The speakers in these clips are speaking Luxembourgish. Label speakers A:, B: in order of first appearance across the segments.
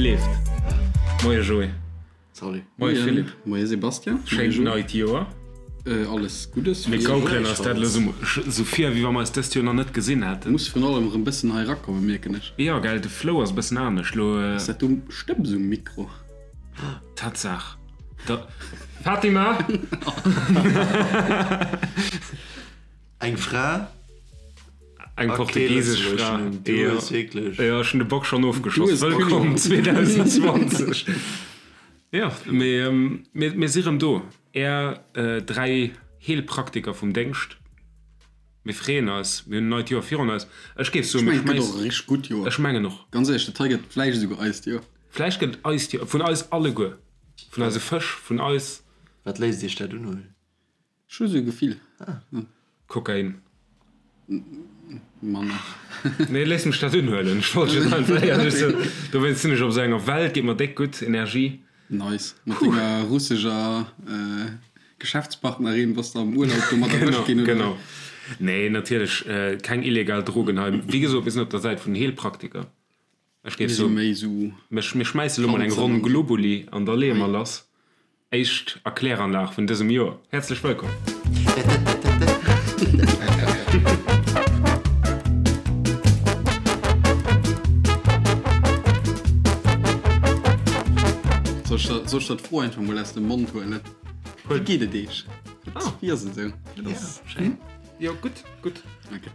A: leeft. Moie Joé.
B: Salut.
A: Moie Philippe.
C: Moie Sebastian.
A: Schéint neit Joer.
C: Alles Guddes.
A: Mir gaukelen eis dat elo sou vir, wéi wa mer eis dëst Joer nach net gesinn hätten.
C: Muss virun allem erëm bëssen hei erakommen, mierken ech.
A: Jo, gell, de Flow ass e bëssen anescht elo.
C: Ass dat do Stëbs um Mikro?
A: Tatsaach. Da Fatima!
B: Eng Fra?
A: Eng portugiesesch Fra.
B: Du hues wierklech.
A: Jo, ech hunn de Bock schonn ofgeschoss. Wëllkomm 2020. Jo, mee mir si rëm do, Är 3 Heelpraktiker vum Déngscht. Mir freeën eis, mir hunn en neit Joer virun eis. Ech géif soen, mir
C: schmeissen. Ech mengen, et gëtt och e richteg gutt Joer.
A: Ech mengen och.
C: Ganz éierlech, dat hei gëtt vläicht esouguer eist Joer.
A: Vläicht gëtt et eist Joer, vun eis alleguer, vun eise Fësch, vun eis.
B: Wat léisst Iech dat unhuelen?
C: Ech hu sou e Gefill.
A: Kokain.
C: Manner.
A: Nee, léiss mech dat unhuelen. Ech wollt just einfach éierlech soen. Dowéinst sinn ech op esou enger Welt, geet mer déck gutt, Energie.
C: Nice. Mat denger russescher Geschäftspartnerin bass de am Urlaub domat erwëscht ginn, oder?
A: Genau. Nee, natierlech keng illegal Drogen hei. Wéi gesot, mir sinn op der Säit vun den Heelpraktiker. Ech géif soen, mir schmäisse lo mol eng Ronn Globuli an da leeë mer lass. Éischt Erkläranlag vun dësem Joer. Häerzlech wëllkomm!
C: Soll ech der d'Fro einfach mol aus dem Mond huelen? Wéi geet et Iech? Wéi ass et esou?
A: Schéin. Jo, gutt, gutt.
C: Ok.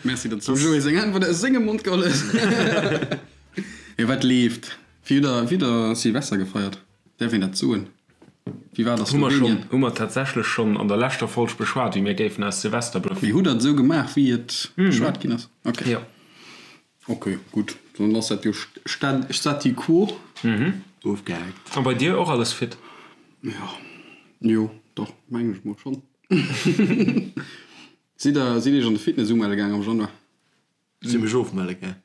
C: Merci, datt s du dem Joé seng Äntwert aus sengem Mond geholl hues. Jo, wat leeft? Wéi hutt der, wéi hutt der Silvester gefeiert? Däerf een dat soen? Wéi war et a
A: Hu mer schonn,
C: Slowenien?
A: hu mer tatsächlech schonn an der leschter Folg beschwat, wéi mir géifen aus Silvester bluffen.
C: Mee hutt der et esou gemaach, wéi et beschwat ginn ass? Ok.
A: Jo.
C: Ok, gutt, dann ass dat jo Stati quo.
B: Ofgehaakt.
A: A bei dir och alles fit?
C: Jo, jo, doch, mengen ech mol schonn. Sidd der, sidd iech an de Fitness umelle gaang am Januar?
B: Ech si mech ofmelle gaang.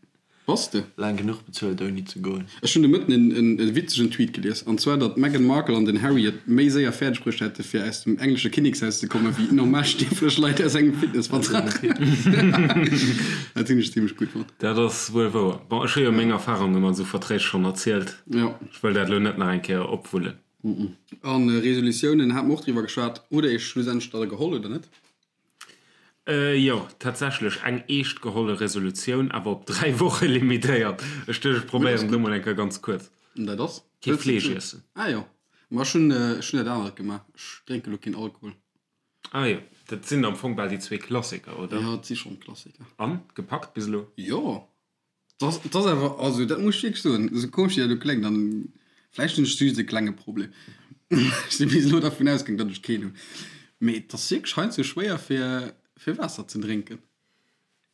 C: Bass de?
B: Laang genuch bezuelt ouni ze goen.
C: Ech hunn de Mëtten en e witzegen Tweet gelies, an zwar datt d'Meghan Markle an den Harry et méi séier fäerdeg bruecht hätte fir aus dem englesche Kinnekshaus ze kommen, wéi normal stierflech Leit aus engem Fitnessvertrag. Dat hunn ech zimmlech gutt fonnt.
A: Dat ass wuel wouer. Bon, ech hu jo meng Erfarunge mat esou Verträg schonn erzielt.
C: Jo.
A: Ech wëll dat elo net nach eng Kéier opwullen.
C: A Resolutiounen hate mer och driwwer geschwat. Hutt Der Iech schlussendlech der geholl oder net?
A: Jo, tatsächlech eng eescht geholle Resolutioun, awer op 3 Woche limitéiert. Ech duecht, ech probéieren et elo mol eng Kéier ganz kuerz.
C: An dat ass?
A: Kee Fleesch iessen.
C: Ah jo, ma ech hunn ech hunn dat anert gemaach. Ech drénke lo keen Alkohol.
A: Ah jo, dat sinn am Fong bal déi zwee Klassiker, oder?
C: Jo, et si schonn Klassiker.
A: An, gepackt bis elo?
C: Jo, Dat ass awer, also dat muss ech wierklech soen, esou komesch wéi dat elo kléngt, an vläicht hunn ech just e klenge Problem, ech si bis elo dervun ausgaang, datt ech keen hunn, mee et ass wierklech heiansdo schwéier fir fir Waasser ze drénken.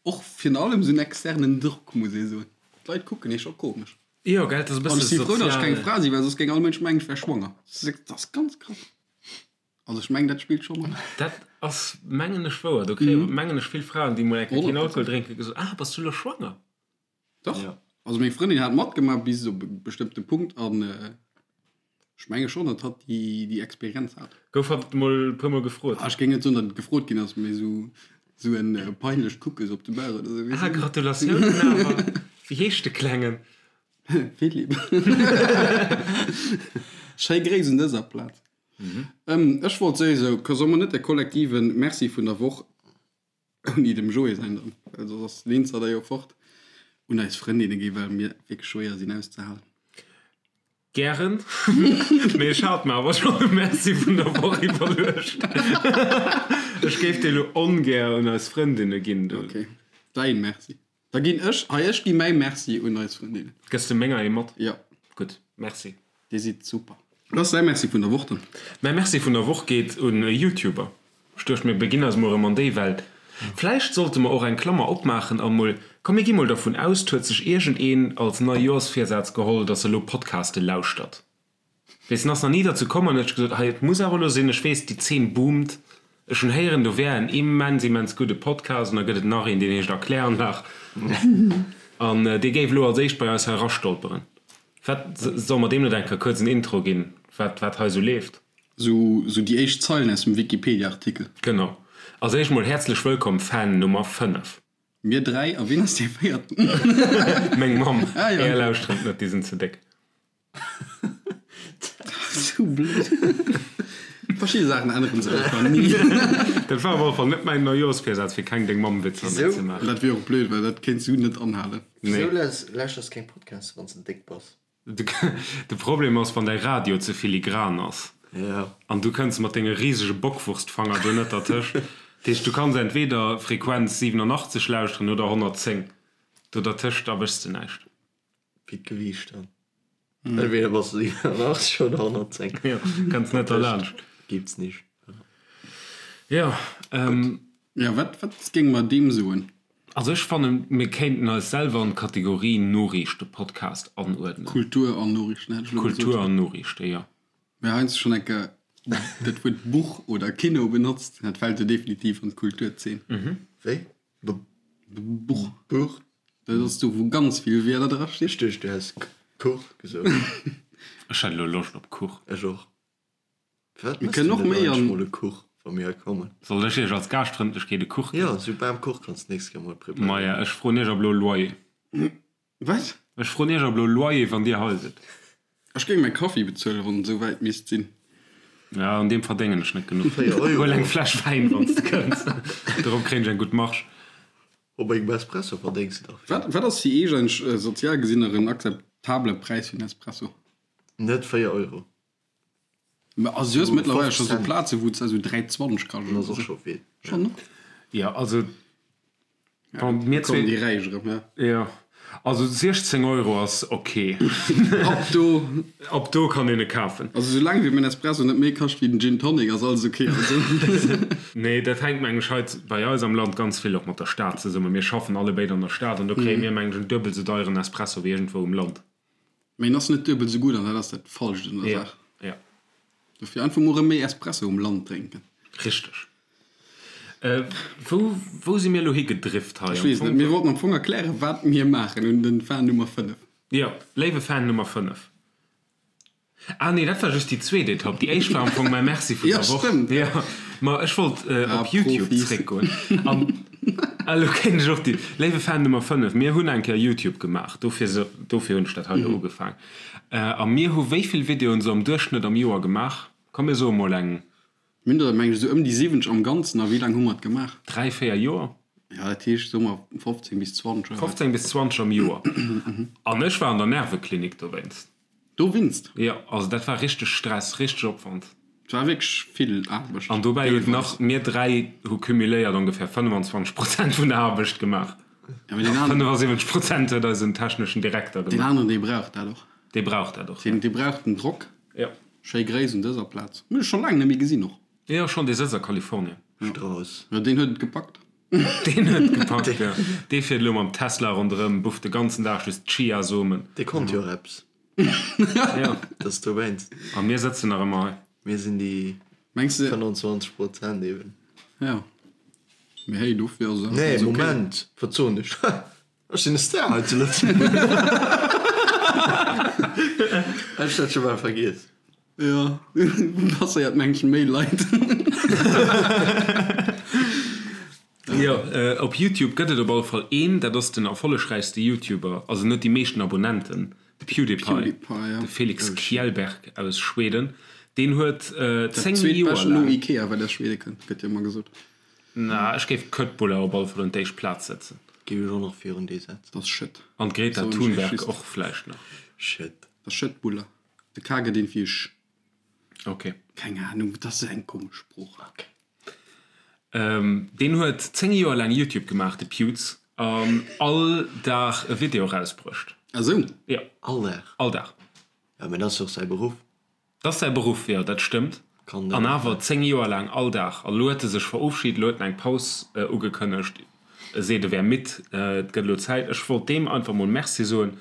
C: Och virun allem esou en externen Drock, muss ee soen. D'Leit kucken ee scho komesch.
A: Jo, gell, et ass e
C: An
A: bësse
C: ech si frou, datt ech keng
A: sozial.
C: Fra sinn, well soss géing all Mënsch mengen, ech wär schwanger. Dat ass ganz krass. Also ech mengen, dat spillt scho mat.
A: Dat ass, mengen ech, wouer. Do kréie, mengen ech, vill Fraen, déi mol eng Kéier keen Alkohol drénken, gesot, Ah, bass du elo schwanger?
C: Dach. Also meng Frëndin hat matgemaach bis op e bestëmmte Punkt an ech menge schonn, datt hatt déi, déi Experienz hat.
A: Gouf hatt mol e puer mol gefrot?
C: Ah, ech géing net soen, datt et gefrot ginn ass, mee esou, esou en peinlecht Kucke sou op de Bauch oder esou, weess
A: Ah,
C: de.
A: Gratulatiounen awer! Wéi heescht de Klengen?
C: Philippe. Schéi Gréiss un dëser Plaz. Ech wollt souwisou, solle mer net de kollektive Merci vun der Woch, ouni dem Joé säin dann, well soss ass den Insider jo fort, un eis Frëndinne ginn, well mir wierklech schwéier sinn auszehalen.
A: Gären, mee ech hat mer awer schonn e Merci vun der Woch iwwerluecht. Ech géif dee lo ongär un eis Frëndinne ginn.
C: Ok, däin Merci. Da ginn ech, hei, ech gi mäi Merci un eis Frëndin.
A: Gëss de menger ee mat?
C: Jo.
A: Gutt, Merci.
C: Dir sidd super. Wat ass däi Merci vun der Woch dann?
A: Mäi Merci vun der Woch geet un e YouTuber. Ech duecht mir beginn eis mol erëm an déi Welt. Vläicht sollte mer och eng Klammer opmaachen an mol, komm mir gi mol dervun aus, 't huet sech iergendeen als Neijoerschvirsaz geholl, dass e lo Podcaste lauschtert. Weess, en ass nach ni derzou komm an huet sech gesot, hei, et muss awer elo sinn, ech weess, déi Zeen boomt, ech hunn héieren, do wär en immens, immens gudde Podcast an da gëtt et nach een, deen heescht Erkläranlag an dee géif elo als éischt bei eis hei erastolperen. Wat, solle mer deem net eng Kéier kuerz en Intro ginn, wat, wat hei esou leeft?
C: Sou, sou déi éischt Zeilen aus dem Wikipedia-Artikel.
A: Genau. Als éischt mol häerzlech wëllkomm, Fan Nummer 5.
C: Mir 3, a wien ass dee véierten?
A: Meng Mamm. Ah, jo. Är lauschteren et net, déi sinn ze déck.
C: Sou blöd. Verschidde Saachen änneren sech einfach ni.
A: Dat war op alle Fall net mäin Neijoorsvirsaz, fir keng Deng-Mamm-Witzer méi ze maachen.
C: Dat wier och blöd, well dat kéints du net anhalen.
B: Nee. Wisou lauschters keng Podcasts, wann s de déck bass?
A: De Problem ass, wann däi Radio ze filigran ass an du kënns mat denge risege Bockwurstfanger do net dertëscht. Dat heescht, du kanns entweder Frequenz 87 lauschteren oder 110. Do dertëscht erwëschs de näischt.
B: Wéi d'Gewiicht dann. Entweder bass de 87 oder 110.
A: Jo, kënns net derlaanscht.
B: Gibt's nicht.
A: Jo,
C: Jo, wat, wat géinge mer deem soen?
A: Also ech fannen, mir kéinten eis selwer an d'Kategorie Noriichtepodcast anuerdnen.
C: Kultur an Noriichten hätt ech elo gesot.
A: Kultur an Noriichte, jo.
C: Mir heiansdo schonn eng Kéier dat Wuert Buch oder Kino benotzt, dat fält jo definitiv an d'Kulturzeen.
B: Wéi?
C: Buch.
B: Buch?
C: Dat ass do, wou ganz vill Wierder drastinn.
B: Ech duecht, du häss Kuch gesot.
A: Ech hätt elo Loscht op Kuch.
B: Ech och. Firwat
C: Mir
B: mëss du
C: kënnen och
B: net
C: méi
B: eigentlech
C: an.
B: mol e Kuch, wa mir hei kommen?
A: Soll ech iech als Gaaschtfrëndlechkeet e Kuch
B: Jo,
A: ginn?
B: esou Bamkuch kanns d'nächst Kéier mol preparéieren.
A: Maja, ech froen iech ab elo Loyer.
C: Wat?
A: Ech froen iech ab elo Loyer, wann dir hei sidd.
C: Ech géing mäi Kaffi bezuelen, wann et esou wäit misst sinn.
A: Ja, un deem verdéngen ech net genuch.
B: 4 Euro.
A: Huel eng Fläsch Wäin, wann s de kënns. Dorop kréien ech eng gutt Marge.
B: Op engem Espresso verdéngs de dach vill.
C: Wat, wat ass fir iech eigentlech sozial gesinn nach en akzeptabele Präis fir en Espresso?
B: Net 4 Euro.
C: Mä also du hues mëttlerweil scho sou Plaze wou s esou 3,20 kascht
B: oder sou. Scho vill.
C: Schon ne?
A: Jo, also bon, mir
C: Kommen
A: zwee.
C: déi Räich erëm, ja.
A: Jo, also 16 Euro ass ok.
C: Ab do.
A: Ab do kann een e kafen.
C: Also soulaang wéi mäin Espresso net méi kascht wéi den Gin Tonic ass alles ok. Also.
A: Nee, dat hänkt meng ech hei bei eis am Land ganz vill och mat der Stad zesummen. Mir schaffen allebéid an der Stad an do kréie mir meng ech en duebel sou deieren Espresso wéi iergendwou um Land.
C: Mee en ass net duebel sou gutt an dat ass dat Falscht un der Saach.
A: Ja.
C: Dofir einfach mol erëm méi Espresso um Land drénken.
A: Richteg. Wou, wou si mir elo higedrift hei?
C: Ech weess net. Mir wollten am Fong erklären, wat mir maachen un den Fan Nummer 5.
A: Jo, léiwe Fan Nummer 5. Ah nee, dat war just déi zweet Etapp. Déi éischt war am Fong mäi Merci vun der Woch.
C: Ja, stëmmt.
A: Ja, ma ech wollt
C: Ah,
A: op YouTube
C: Profis.
A: zréckgoen. An elo kéint ech och déi. Léiwe Fan Nummer 5, mir hunn eng Kéier YouTube gemaach, dofir se, dofir hunn ech dat hei elo ugefaang. A mir hu wéi vill Videoen esou am Duerchschnëtt am Joer gemaach? Komm mir soe mol eng.
C: Mir hunn der, meng ech, esou ëm déi 70 am Ganzen. A wéi laang hu mer et gemaach?
A: 3, 4 Joer.
C: Ja, dat heescht, soe mer 15 bis 20 oder wat.
A: 15 bis 20 am Joer. An ech war an der Nerveklinik dowéinst.
C: Dowéinst?
A: Jo, also dat war richteg Stress, richteg Opwand.
C: Et war wierklech vill Aarbecht.
A: An dobäi huet nach, mir 3 hu cumuléiert ongefähr 25 Prozent vun der Aarbecht gemaach.
C: Ja, mee deen aneren.
A: 75 Prozent huet eisen techneschen Direkter
C: Deen
A: gemaach.
C: aneren, dee brauch dat och.
A: Dee brauch dat och, jo.
C: Deen, dee brauch den Drock.
A: Jo.
C: Schéi Gréiss un dëser Plaz. Hunn ech scho laang net méi gesinn och.
A: Jo, schon, dee sëtzt a Kalifornien.
B: Strauss.
C: Jo, deen huet et gepackt.
A: Deen huet et gepackt, jo. Dee fiert elo mam Tesla ronderëm, bufft de ganzen Dag just Chiasomen.
B: Dee konnt jo och eppes.
A: Jo.
B: Dat ass dowéinst.
A: A mir sëtzen nach ëmmer hei.
B: Mir sinn déi
C: Mengs de?
B: 25 Prozent eben.
C: Jo. Mee hey, dofir ass et
B: Nee,
C: ok.
B: Moment, wat soen ech? Ech sinn e Star hei zu Lëtzebuerg. Ech dat scho bal vergiess.
C: Jo, passéiert mengen méi Leit.
A: Jo, op Youtube gëtt et op alle Fall een, dat ass den erfollegräichste Youtuber, also en huet déi meeschten Abonnenten, de PewDiePie, de Felix Kjellberg aus Schweden. Deen huet 10 Joer
C: laang. No
A: laang.
C: Ikea, wat aus Schwede kënnt, gëtt jo ëmmer gesot.
A: Na, ech géif d'Köttbullar op alle Fall un d'éischt Plaz setzen.
B: Géif ech och nach virun déi setzen.
C: Dat ass Schëtt.
A: An d'Greta
C: Soen ech
A: Thunberg
C: just.
A: och vläicht nach.
B: Schëtt.
C: Dat ass Schëttbuller. De K gëtt een fir Sch.
A: Ok.
C: Keng Ahnung, dat ass eng komesch Sprooch.
A: Ok. Deen huet 10 Joer laang Youtube gemaach, de Pewds, an all Dag e Video erausbruecht.
C: Ah sou?
A: Jo.
B: All Dag?
A: All Dag.
B: Jo, mä dat ass jo och säi Beruff.
A: Dat ass säi Beruff, jo, dat stëmmt. An awer 10 Joer laang all Dag. An elo huet e sech verofschied, elo huet en eng Paus ugekënnegt. E seet, e wär midd, et gëtt elo Zäit. Ech wollt deem einfach mol Merci soen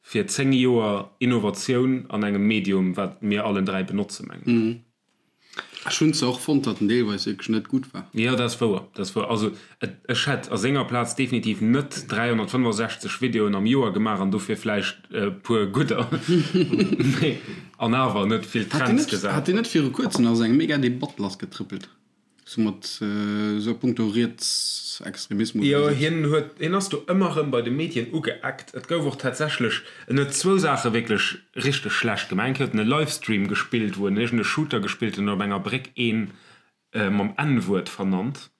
A: fir 10 Joer Innovatioun an engem Medium, wat mir allen 3 benotzen, mengen ech.
C: Ech hunn zwar och fonnt, datt en deelweis wierklech net gutt war.
A: Jo, dat ass wouer, dat ass wouer. Also et, ech hätt a senger Plaz definitiv net 365 Videoen am Joer gemaach an dofir vläicht e puer gudder, mee an awer net vill
C: Hat deen
A: Trends
C: net,
A: gesat.
C: hat deen net viru kuerzem nach esou eng mega Debatt lassgetrëppelt? Sou mat sou a punkto Rietsextremismus
A: Jo, oder sou. hien huet, hien ass do ëmmer erëm bei de Medien ugeeckt. Et gouf och tatsächlech, en huet zwou Saache wierklech richteg schlecht gemaach. Eng Kéier huet en e Livestream gespillt, wou en iergend e Shooter gespillt huet an op enger Bréck een mam N-Wuert vernannt.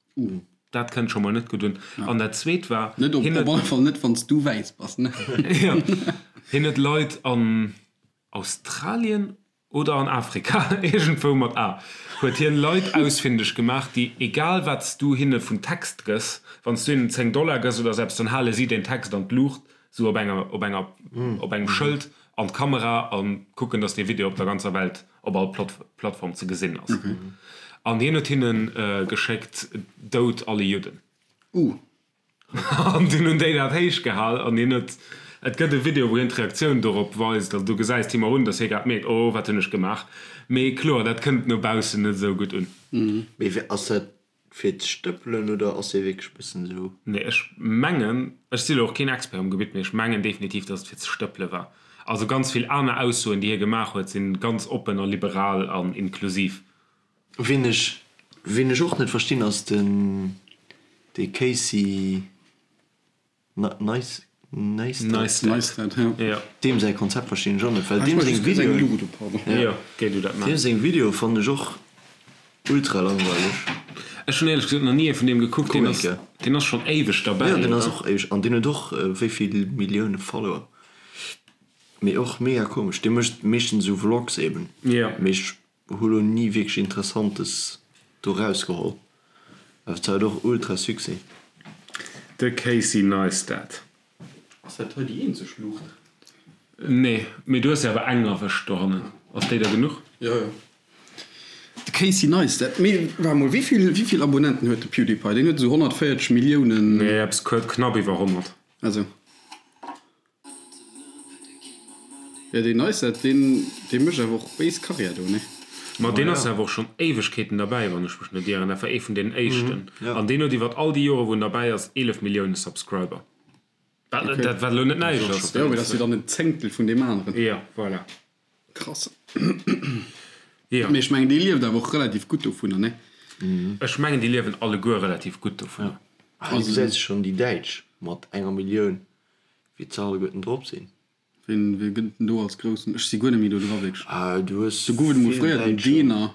A: Dat kënnt scho mol net gutt un. An dat zweet war,
C: Net op, hien op huet, alle Fall net, wann s du wäiss bass, ne?
A: jo, hien huet Leit an Australien Oder an Afrika, iergendwou mat A, huet hien Leit ausfindeg gemaach, déi, egal wat s du hinne vun Text gëss, wann s du hinnen 10 Dollar gëss oder sou eppes, dann hale si deen Text an d'Luucht, sou op enger, op enger, op engem Schëld an d'Kamera a kucken, dass dee Video op der ganzer Welt op all Plattform ze gesinn ass. An hien huet hinne geschéckt, Dout alle Judden.
C: Uh.
A: An dunn hunn déi dat héich gehal an hien huet, et gëtt e Video wou hien d'Reaktioun dorop weist an du gesäis him och un, datt hie grad mierkt, oh wat hunn ech gemaach. Mee kloer, dat kënnt no baussen net esou gutt un.
B: Mee wéi, ass dat fir ze stëppelen oder ass hie wierklech e bëssen esou?
A: Nee, ech mengen, ech si lo och keen Expert um Gebitt, mee ech mengen definitiv, datt et fir ze stëppele war. Also ganz vill aner Aussoen déi hie gemaach huet, sinn ganz oppen a liberal an inklusiv.
B: Ween ech ween ech och net verstinn ass den dee Casey Neistat.
C: Neistat,
B: jo. Deem säi Konzept verstinn ech och net, well deem seng Videoen, deem seng Videoe fannen ech och ultra langweileg.
A: Ech hunn éierlech gesot nach ni ee vun deem gekuckt. Deen ass deen ass schonn éiweg derbäi,
B: Jo, deen ass och éiweg an deen huet och wéi vill Millioune Follower. Mee och mega komesch. Dee mécht meeschtens esou Vlogs eben. Mee ech Hu lo ni wierklech interessantes do rausgeholl, awer et hat och ultra Succès.
A: De Casey Neistat.
C: Ass dat hei déi eenzeg Luucht?
A: Nee, mee du hues jo awer eng erwëscht dohannen. Ass déi der genuch?
C: Jo, jo. De Casey Neistat. Mee waart mol, wéivill, wéivill Abonnenten huet de PewDiePie? Deen huet esou 140 Milliounen.
A: Nee, eppes knapp iwwer 100.
C: Also. Jo deen Neistat deen dee mécht awer och béis Karriär do ne?
A: Ma deen ass awer och schonn Éiwegkeeten derbäi, wann ech mech net ieren. Dat war ee vun deenen éischten. An deen huet iwwer all déi Jore wou en derbäi ass 11 Millioune Subscriber. Wat dat wat elo net näischt ass.
C: Jo mee dat ass jo dann en Zéngtel vun deem aneren.
A: Jo voilà.
C: Krass. Jo. Mee ech mengen dee lieft awer och relativ gutt dovunner ne?
A: Ech mengen déi liewen alleguer relativ gutt dovunner.
B: Ah du gesäis schonn déi Däitsch mat enger Millioun. Wéi ze alleguerten drop sinn.
C: Ween wee gëtt den do als groussen? Ech si guer net méi do dra wierklech.
B: Ah du hues
C: Do gouf et emol fréier den Deener,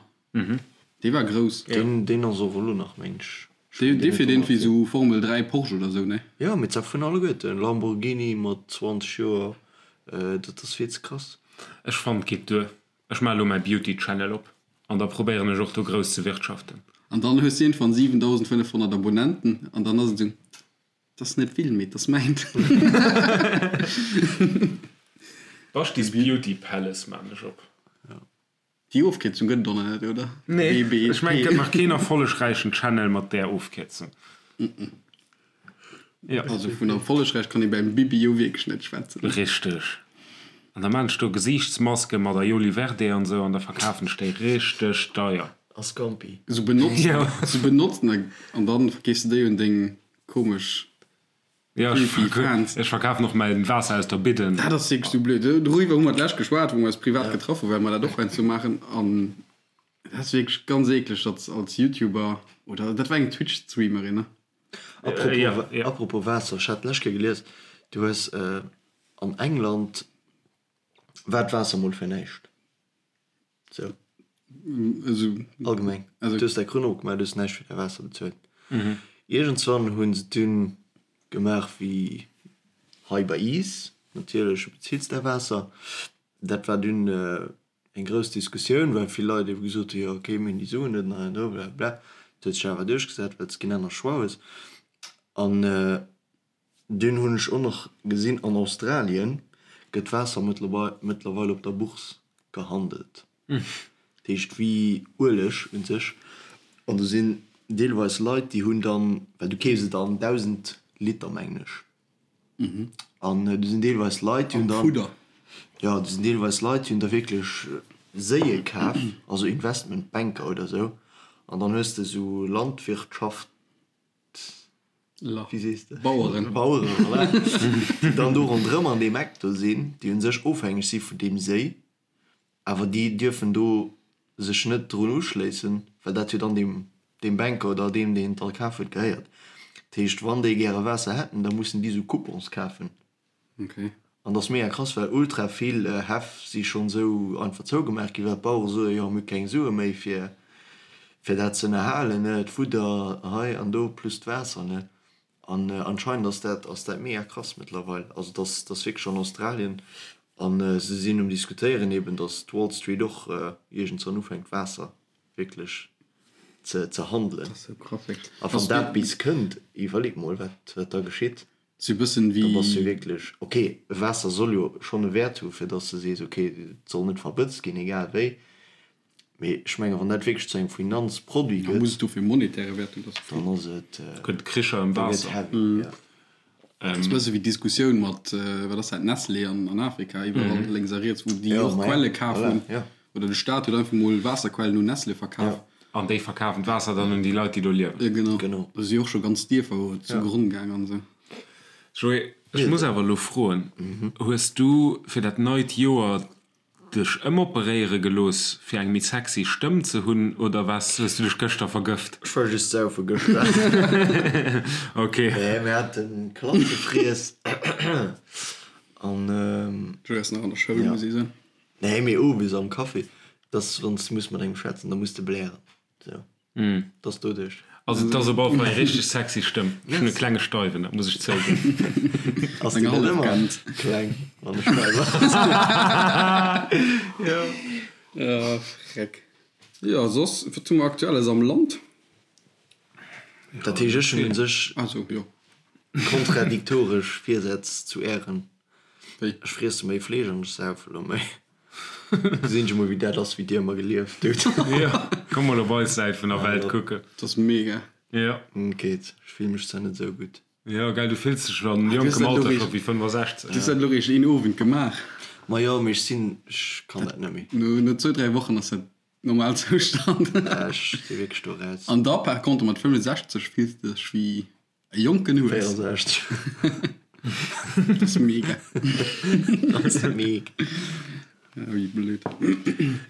C: dee war grouss.
B: Deen deen ass och elo nach meng ech.
C: Dee dee fiert iergendwéi sou Formel 3 Porsche oder sou, ne?
B: Jo mee se vun alleguerten. Lamborghini mat 20 Joer, dat ass vill ze krass.
A: Ech fannen et geet duer. Ech maache lo mäi Beauty Channel op an da probéieren ech och do grouss ze wirtschaften.
C: An dann hues du iergendwann 7500 Abonnenten an dann ass et esou. 't ass net vill, mee 't ass mäint.
A: Baschtis Beauty Palace maan ech op.
C: Déi Ofkierzung gëtt et och nach net, oder?
A: Nee, ech mengen et gëtt nach keen erfollegräichen Channel mat där Ofkierzung.
C: Jo. Also vun erfollegräich kann ee beim Bibi jo wierklech net schwätzen.
A: Richteg. An da maan ech do Gesiichtsmaske mat Aioli Verde an sou an da verkafen ech déi richteg deier.
B: A Scampi.
C: Sou benotzen, sou benotzen an dann verkeefs de déi un deng Komesch.
A: Ja, ech verk ech verkafen och mäin Waasser aus der Bidden.
C: Dat ass wierklech sou blöd. Doriwwer hu mer d'lescht geschwat, wou mer eis privat getraff hu well mer dat och heiansdo maachen. An dat ass wierklech ganz eekleg, datt als Youtuber, oder dat war eng Twitch-Streamerin, ne?
B: Apropos, ja, ja. Apropos Waasser, ech hat d'lescht Kéier gelies, du hues an England war d'Waasser mol fir näischt. Sou.
C: Also.
B: Allgemeng. Also. Du hues däi Krunn opgemaach, du hues näischt fir däi Waasser bezuelt. Iergendswann hu se dunn gemaach wéi hei bei iis, natierlech, du bezills däi Waasser. Dat war dunn eng grouss Diskussioun, well vill Leit ebe gesot hu, jo okay, mir hunn déi Suen net an hei an do, blablabla. Dat huet sech awer duerchgesat, well s de keen anere Choix hues. An Dunn hunn ech och nach gesinn, an Australien gëtt Waasser mëttlerweil op der Bourse gehandelt. Dat heescht wéi Ueleg un sech. An do sinn deelweis Leit, déi hunn dann, well du keefs et an 1.000 Liter mengen ech, an do sinn deelweis Leit, déi hunn dann, jo, do sinn deelweis Leit, déi hunn da wierklech Séie kaf, also Investmentbanker oder esou, an dann hues de esou Landwirtschaft, Wéi sees de?
C: Baueren.
B: Baueren, voilà. Déi dann do ronderëm an deem Eck do sinn, déi u sech ofhängeg si vun deem Séi, awer déi dierfen do sech net drun uschléissen, well dat jo dann deem. Deem Banker oder deem, deen et da kaf huet, gehéiert. Dat heescht, wann déi gäre Waasser hätten, da mussen déi sou Coupons kafen.
C: Okay.
B: An dat ass mega krass, well ultra vill Häff si schonn esou einfach zougemaach ginn, well d'Bauere soen, jo mir hu keng Sue méi fir fir dat ze ënnerhalen, ne, d'Fudder hei an do plus d'Waasser, ne. An anscheinend ass dat ass dat mega krass mëttlerweil. Also dat ass dat ass wierklech an Australien an se sinn um diskutéieren eben, datt d'Wall Street och iergendzwann ufänkt Waasser wierklech ze ze handelen.
C: Dat ass sou krass, wierklech.
B: A wann dat bis kënnt, iwwerleet mol wat wat da geschitt.
C: Sou e bëssen
B: Da bass du wierklech, ok, Waasser soll jo schonn e Wäert hu fir dass de sees, ok, et soll net verbëtzt ginn, egal wéi. Mee ech mengen, wann dat wierklech zu engem Finanzproduit
C: Da muss
B: gëtt,
C: et dofir e monetäre Wäert hunn, dat ass
B: dann ass et,
A: Gëtt Kricher ëm
B: da gëtt
A: Waasser.
B: heavy, jo.
C: Dat ass e bësse wéi d'Diskussioun mat, wat ass dat, Nestlé an Afrika, iwwerall lénks a riets, wou déi
B: Jo,
C: och
B: ma ja,
C: Quelle kaf
B: voilà,
C: hunn.
B: jo.
C: Oder de Staat huet einfach mol Waasserquellen un Nestlé verkaf.
B: Jo.
A: An déi verkafen d'Waasser dann un déi Leit, déi do liewen.
C: Jo, genau.
B: Genau.
C: Do si och scho ganz Dierfer zu Gronn gaang an esou.
A: Joé, ech muss awer elo froen, Hues du fir dat neit Joer dech ëmoperéiere gelooss, fir eng méi sexy Stëmm ze hunn, oder waars, hues du dech gëschter vergëft?
B: Ech war just saufe gëschter.
A: Ok.
B: Nee, mir haten Klassefriess an.
C: Joé ass nach an der Schoul, muss ee soen.
B: Nee, mee owes am Café, dass wann s de muss mat engem schwätzen, da muss de blären. Sou, dass doduerch.
A: Also et ass op alle Fall eng richteg sexy Stëmm. Ech hunn e klenge Steiwen, dat muss ech zouginn.
B: Ass déi net ëmmer kleng, wann e Steiwer ass?
A: Jo.
C: Ah, freck. Jo, soss, wat hu mer Aktuelles am Land?
B: Dat heescht, ech hunn un sech
C: Also, jo.
B: kontradiktoresch Virsätz zu Ären.
C: Wéi?
B: Ech friesse méi Fleesch an ech saufe lo méi. Gesinn ech emol wéi dat ass wéi dir ëmmer gelieft hutt.
A: Jo, komm mol op eis Säit vun der Welt kucken.
C: Dat ass mega.
A: Jo.
B: Geet, ech fill mech zwar net esou gutt.
A: Jo, gell, du fills dech an jonkem Alter scho wéi 65.
C: Du hues dat elo réischt een Owend gemaach.
B: Ma jo, mee ech sinn, ech kann dat net méi.
C: No zwou, dräi Wochen ass dat Normalzoustand.
B: Ech si wierklech do raus.
C: An da par contre mat 65 fills de dech wéi E jonken Hues.
B: 64.
C: Dat ass mega.
B: Dat ass mega.
C: Wéi blöd.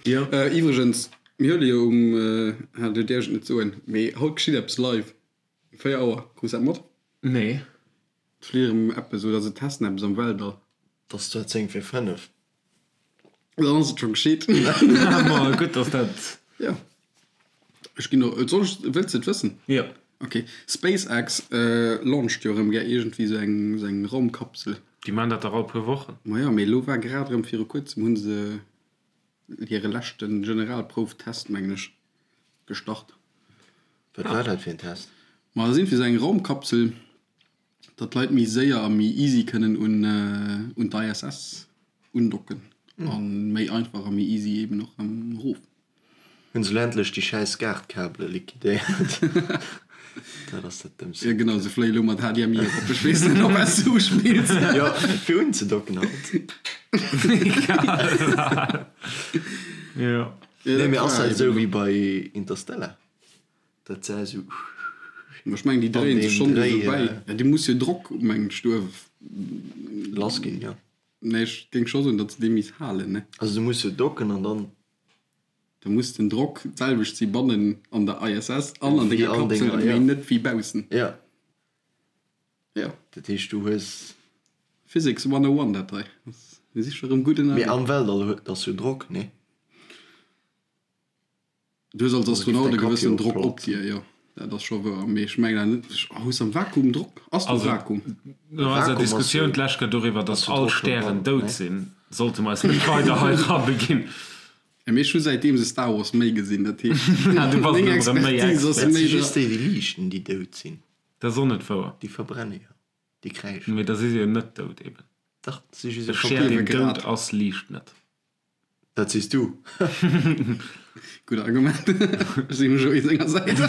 A: Jo.
C: Iwwregens, mir huele jo um, ah, do däerf ech et net soen, mee haut geschitt eppes live. Um 4 Auer. Krus dat mat?
A: Nee.
C: Et flitt erëm eppes oder se testen eppes am Weltall.
B: Et ass zwar 10 vir 5.
C: Dann ass et scho geschitt.
A: Ma gutt, dass dat.
C: Jo. Ech ginn och. Soll ech, wëlls de et wëssen?
A: Jo.
C: Ok. SpaceX launcht jo erëm gär iergendwéi esou eng, esou eng Raumkapsel.
A: Déi maachen dat dach all puer Wochen.
C: Ma jo, mee elo war grad erëm viru kuerzem hu se hire leschte Generalprouftest, mengen ech, gestart.
B: Wat war dat fir en Test?
C: Ma dat ass iergendwéi esou eng Raumkapsel, datt d'Leit méi séier a méi easy kënnen un d'ISS undocken a méi einfach a méi easy eben och erëm erof.
B: Hunn se elo endlech déi schäiss Gaartkabele liquidéiert? Dat ass dat Dëmmste.
C: Jo genau, se fléie lo mat HDMI erop. Ech weess net op wat s du uspills.
B: Jo, fir unzedocken halt.
A: Jo.
B: Nee, mee ass dat esou wéi bei Interstellar? Dat sah esou.
C: Ma ech mengen déi dréien sech schonn do esou bäi. Ja déi muss jo Drock mengen ech do.
B: Lass ginn, jo.
C: Nee ech géing scho soen datt se dee misst halen ne.
B: Also du muss jo docken an dann.
C: Da muss den Drock d'selwecht si bannen an der ISS an an denger Kapsel, mee net wéi baussen.
B: Ja.
C: Jo.
B: Dat heescht du hues.
C: Physics 101 dat hei. Mir si scho rëm gutt ënnerwee.
B: Mee am Weltall huet ass jo Drock, nee?
C: Du hues als Astronaut e gewëssen Drock op dir, jo, dat ass scho wouer. Mee ech mengen awer net, hues am Vakuum Drock? Ass do Vakuum?
A: No eiser Diskussioun d'lescht Kéier doriwwer, datt all Stären dout sinn, sollte mer eis net weider hei erabeginn.
C: Mee ech hu säitdeem se Star Wars méi gesinn, dat heescht, meng Expertise ass
B: Dat
C: méi
B: si just déi, déi liichten, déi dout sinn.
A: Dat ass och net wouer.
B: Déi verbrenne jo, déi kräischen.
A: Mee da si se jo net dout eben.
B: Dach, si just
A: E Stär, deen dout ass, liicht net.
B: Dat sees du.
C: Gutt Argument. Ech sinn um Joé senger Säit.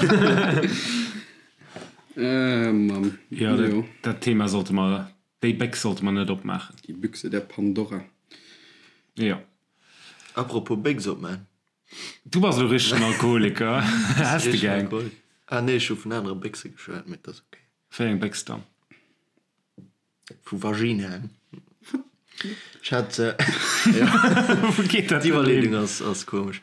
C: Äh, Mann.
A: Jo, dat, dat Thema sollte mer, déi Béchs sollte mer net opmaachen.
C: Die Büchse der Pandora.
A: Jo.
B: Apropos Béchs opman.
A: Du bass elo richtegen Alkoholiker. Häss de gär eng?
B: Ah nee, ech hu vun anere Béchse geschwat, mee et ass ok.
A: Wéi eng Béchs dann?
B: Vu Vaginaen. Ech hat,
A: Wou geet dat
B: d'Iwwerleedung ass, ass komesch.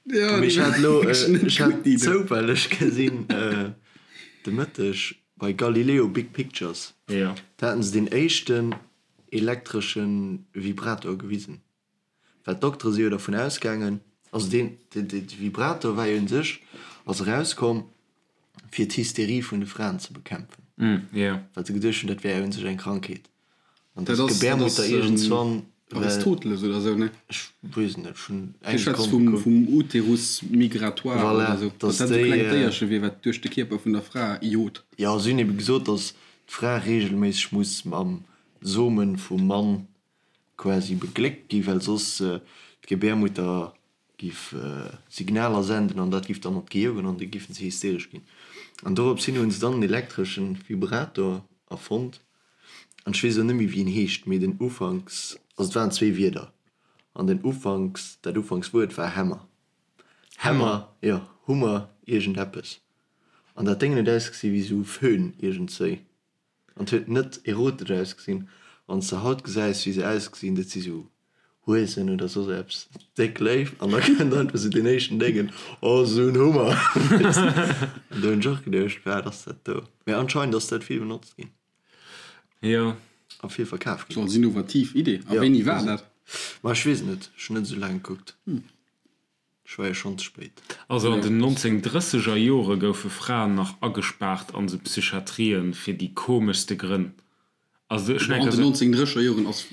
C: Ja,
B: Mee ech hat elo, ech hat zoufälleg gesinn de Mëtteg bei Galileo Big Pictures,
A: Jo.
B: do haten se deen éischten elektresche Vibrator gewisen. Well d'Doktere si jo dervun ausgaangen, also deen, de Vibrator war jo un sech, ass erauskomm fir d'Hysterie vun de Fraen ze bekämpfen, well se geduecht hunn, dat wär jo un sech eng Krankheet. An
C: Dat
B: dass
C: ass, dat ass
B: d'Gebärmutter iergendswann, well,
C: Aristoteles oder sou, ne?
B: ech weess et net, ech hunn
C: Dee
B: eng
C: schwätzt
B: Sekonn
C: vum,
B: gekuckt.
C: vum Uterus migratoire
B: Voilà,
C: oder sou, dass
B: dass
C: dat sou
B: déi,
C: klengt Déierche wier, wat duerch de Kierper vun der Fra jot.
B: Jo, si hunn ebe gesot, dass d'Fra reegelméisseg muss mam Somen vum Mann quasi begléckt gi, well soss d'Gebärmutter giff Signaler senden an dat giff dann op d'Gehir goen an da giffen se hysteresch ginn. An dorops hin hunn se dann en elektreschen Vibrator erfonnt an ech weess elo net méi wéi en heescht, mee den Ufanks, also et waren zwee Wierder an den Ufanks, dat Ufankswuert war Hämmer, Hämmer, jo Hummer iergendeppes an dat Déngen huet ausgesi wéi sou Föhn iergendzéi. An et huet net erotesch ausgesinn. Wann s de haut gesäis wéi se ausgesinn, dat si sou Huesen oder soss eppes, déck léif, an da kënnt einfach sou deen éischten Déngen, oh sou en Hummer. An do hunn ech och geduecht, wat ass dat do? Mee anscheinend ass dat vill benotzt ginn.
A: Jo.
B: A vill verkaf ginn.
C: Sou als innovativ Idee. A wéini war dat?
B: Ma ech weess et net, ech hunn net esou laang gekuckt. Ech war jo schonn ze spéit.
A: Also an den 1930 er Jore goufe Fraen nach agespaart an sou Psychiatrien fir déi komeschste Grënn. Also ech
C: An
A: mengen.
C: den 1930 er Joren ass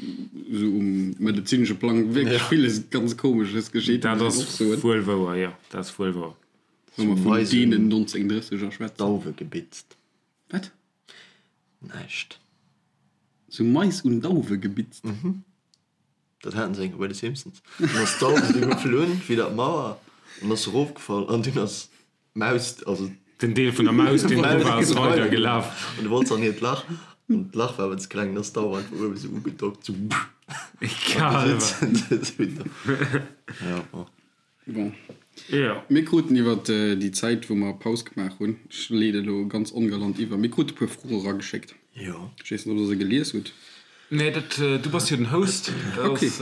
C: sou um medezinesche Plang wierklech villes ganz Komesches geschitt,
A: Dat
C: muss een
A: ass
C: och soen.
A: wuel wouer, jo, dat ass wuel wouer.
C: Wa mer vun deenen 1930 er schwätzen.
B: Dauwe gebitzt.
C: Wat?
B: Näischt.
C: Sou Mais un Dauwe gebitzt?
B: Dat haten se eng Kéier bei de Simpsons. Dunn ass d'Dauf esou geflunn widder d'Mauer an ass erofgefall an dunn ass d'Maus, also.
A: Den Deel vun der Maus, deen dru war, ass weider gelaf.
B: An du wollt se an hiert Lach an d'Lach war awer ze kleng, dann ass d'Dauf einfach uewe sou ugedockt, sou.
A: Egal.
B: Ja, bon.
C: Bon.
A: Jo.
C: Mir kruten iwwer déi Zäit, wou mer Paus gemaach hunn, ech leede elo ganz ongalant iwwer, mir krute e puer Froe erageschéckt.
B: Jo.
C: Ech weess net, ob Der se gelies hutt.
A: Nee, dat, du bass jo den Host, dat
C: Okay.
A: ass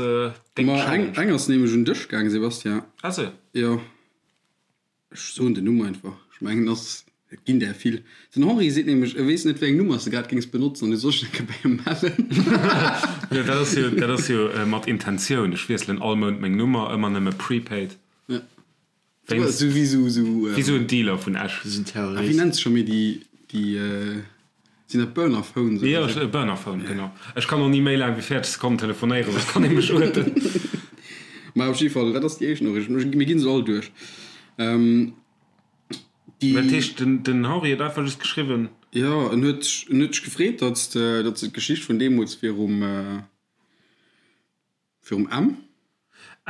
A: deng
C: Ma eng,
A: Challenge.
C: eng ass nämlech un dech gaang, Sebastian.
A: Ah sou.
C: Jo. Ech soen den Numm einfach. Ech mengen, ass, et ginn där vill. Den Henri seet nämlech, e weess net, wéi eng Nummer s de grad géings benotzen an du soll sech eng Kéier bei him mellen.
A: Jo, dat ass jo, dat ass jo mat Intentioun. Ech wiesselen all Mount meng Nummer, ëmmer nëmme prepaid.
C: Ja.
A: Wéinst,
C: Sou wéi sou, sou.
A: wéi sou en Dealer vun Esch.
B: Sou en
C: Ah, wéi
B: Terrorist.
C: nennt sech scho méi déi, déi, sinn dat Burner Phones
A: Jo,
C: oder sou?
A: e Burner Phone, genau. Ech kann och ni méi laang wéi 40 Sekonnen telefonéieren, soss kann ee mech uerten.
C: Mä op jidde Fall, dat ass déi éischt Noriicht. Mir ginn se all duerch. Déi.
A: Dat heescht, den, den Henri huet einfach just geschriwwen.
C: Jo, en huet, en huet sech gefreet, datt s de, datt s de d'Geschicht vun deemools virum, virum M.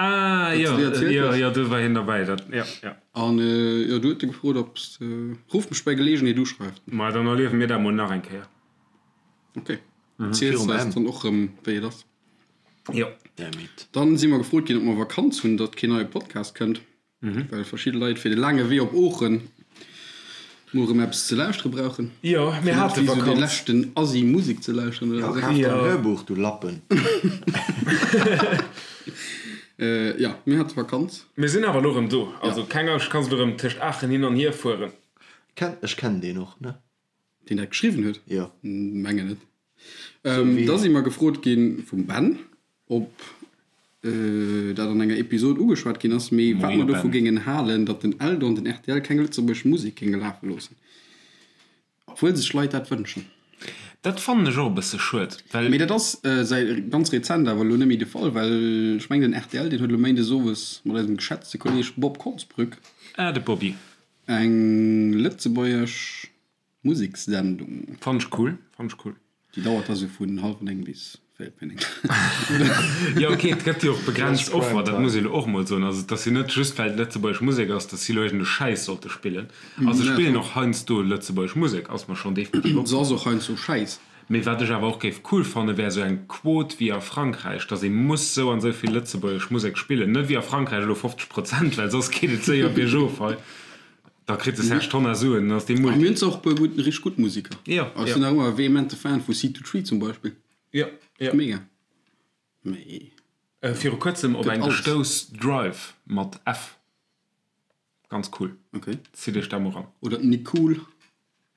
A: Ah,
C: Datt
A: jo,
C: s de déi erzielt
A: jo,
C: hues.
A: jo, do war hien derbäi, dat, jo, jo.
C: An, jo, du huet e gefrot, ob s de, Rufft mech bei Geleegenheet u, schreift en.
A: Ma dann erliewe mir dat mol nach eng Kéier.
C: Ok, erziels
B: Virum
C: eis
B: M.
C: dann och erëm, wéi et ass.
A: Jo.
B: Damn it.
C: Dann si mer gefrot ginn, ob mer Vakanz hunn, datt keen neie Podcast kënnt. Well verschidde Leit fir de laange Wee op Oochen mol erëm eppes ze lauschtere brauchen.
A: Jo, mir hate
C: Wéi sou dee
A: Vakanz.
C: leschten Assi Musek ze lauschteren
B: Jo,
C: oder esou.
B: kaf der en Hörbuch, du Lappen.
C: Jo, mir hate Vakanz.
A: Mir sinn awer elo erëm do. Also keng Angscht, kanns elo erëm tëscht Aachen hin an hier fueren.
B: Ken, ech kennen deen och, ne?
C: Deen dat geschriwwen huet?
B: Jo.
C: Mengen net. Da si mer gefrot gi vum Ben, ob dat an enger Episod ugeschwat ginn ass, mee wat mer dovu géingen halen, datt den Eldo an den rtl keng lëtzebuergesch Musek géinge lafe loossen, obwuel sech Leit dat wënschen.
A: Dat fannen ech och e bësse schued, well.
C: Mee dat ass säi ganz rezent awer elo net méi de Fall, well ech mengen den rtl, deen huet elo méindes owes mat eisem geschätzte Kolleeg Bob Konsbrück,
A: Ah, de Bobby.
C: Eng lëtzebuergesch Musekssendung.
A: Fannt ech cool, fannt ech cool.
C: Déi dauert da sou vun hallwer 9 bis véierel vir 9.
A: Jo ok, et gëtt jo och begrenzt Offer, dat muss ee lo och mol soen. Also et ass jo net just well et lëtzebuergesch Musek ass, datt si lo iergend e Schäiss sollte spillen. Also se spillen och heiansdo lëtzebuergesch Musek, ass mer schonn definitiv
C: Se ass
A: opgefall.
C: och heiansdo Schäiss.
A: Mee wat ech awer och géif cool fannen, wär esou eng Quot wéi a Frankräich, datt ee muss sou an sou vill lëtzebuergesch Musek spillen. Net wéi a Frankräich elo 50 Prozent, well soss geet et séier biergof hei. Da kritt de Serge Tonnar Suen, dann ass dee
C: A mir
A: Multi.
C: hunn zwar och e puer gutt, richteg gutt Museker.
A: Jo,
C: Ech
A: jo.
C: sinn nach ëmmer e vehemente Fan vu Seed to Tree zum Beispill.
A: Jo, jo.
C: Mega. Mee
A: Viru kuerzem op
C: gëtt
A: eng
C: alles.
A: gestouss, Drive mat F. Ganz cool.
C: Ok.
A: Zitt iech dat mol ran.
C: Oder d'Nicool.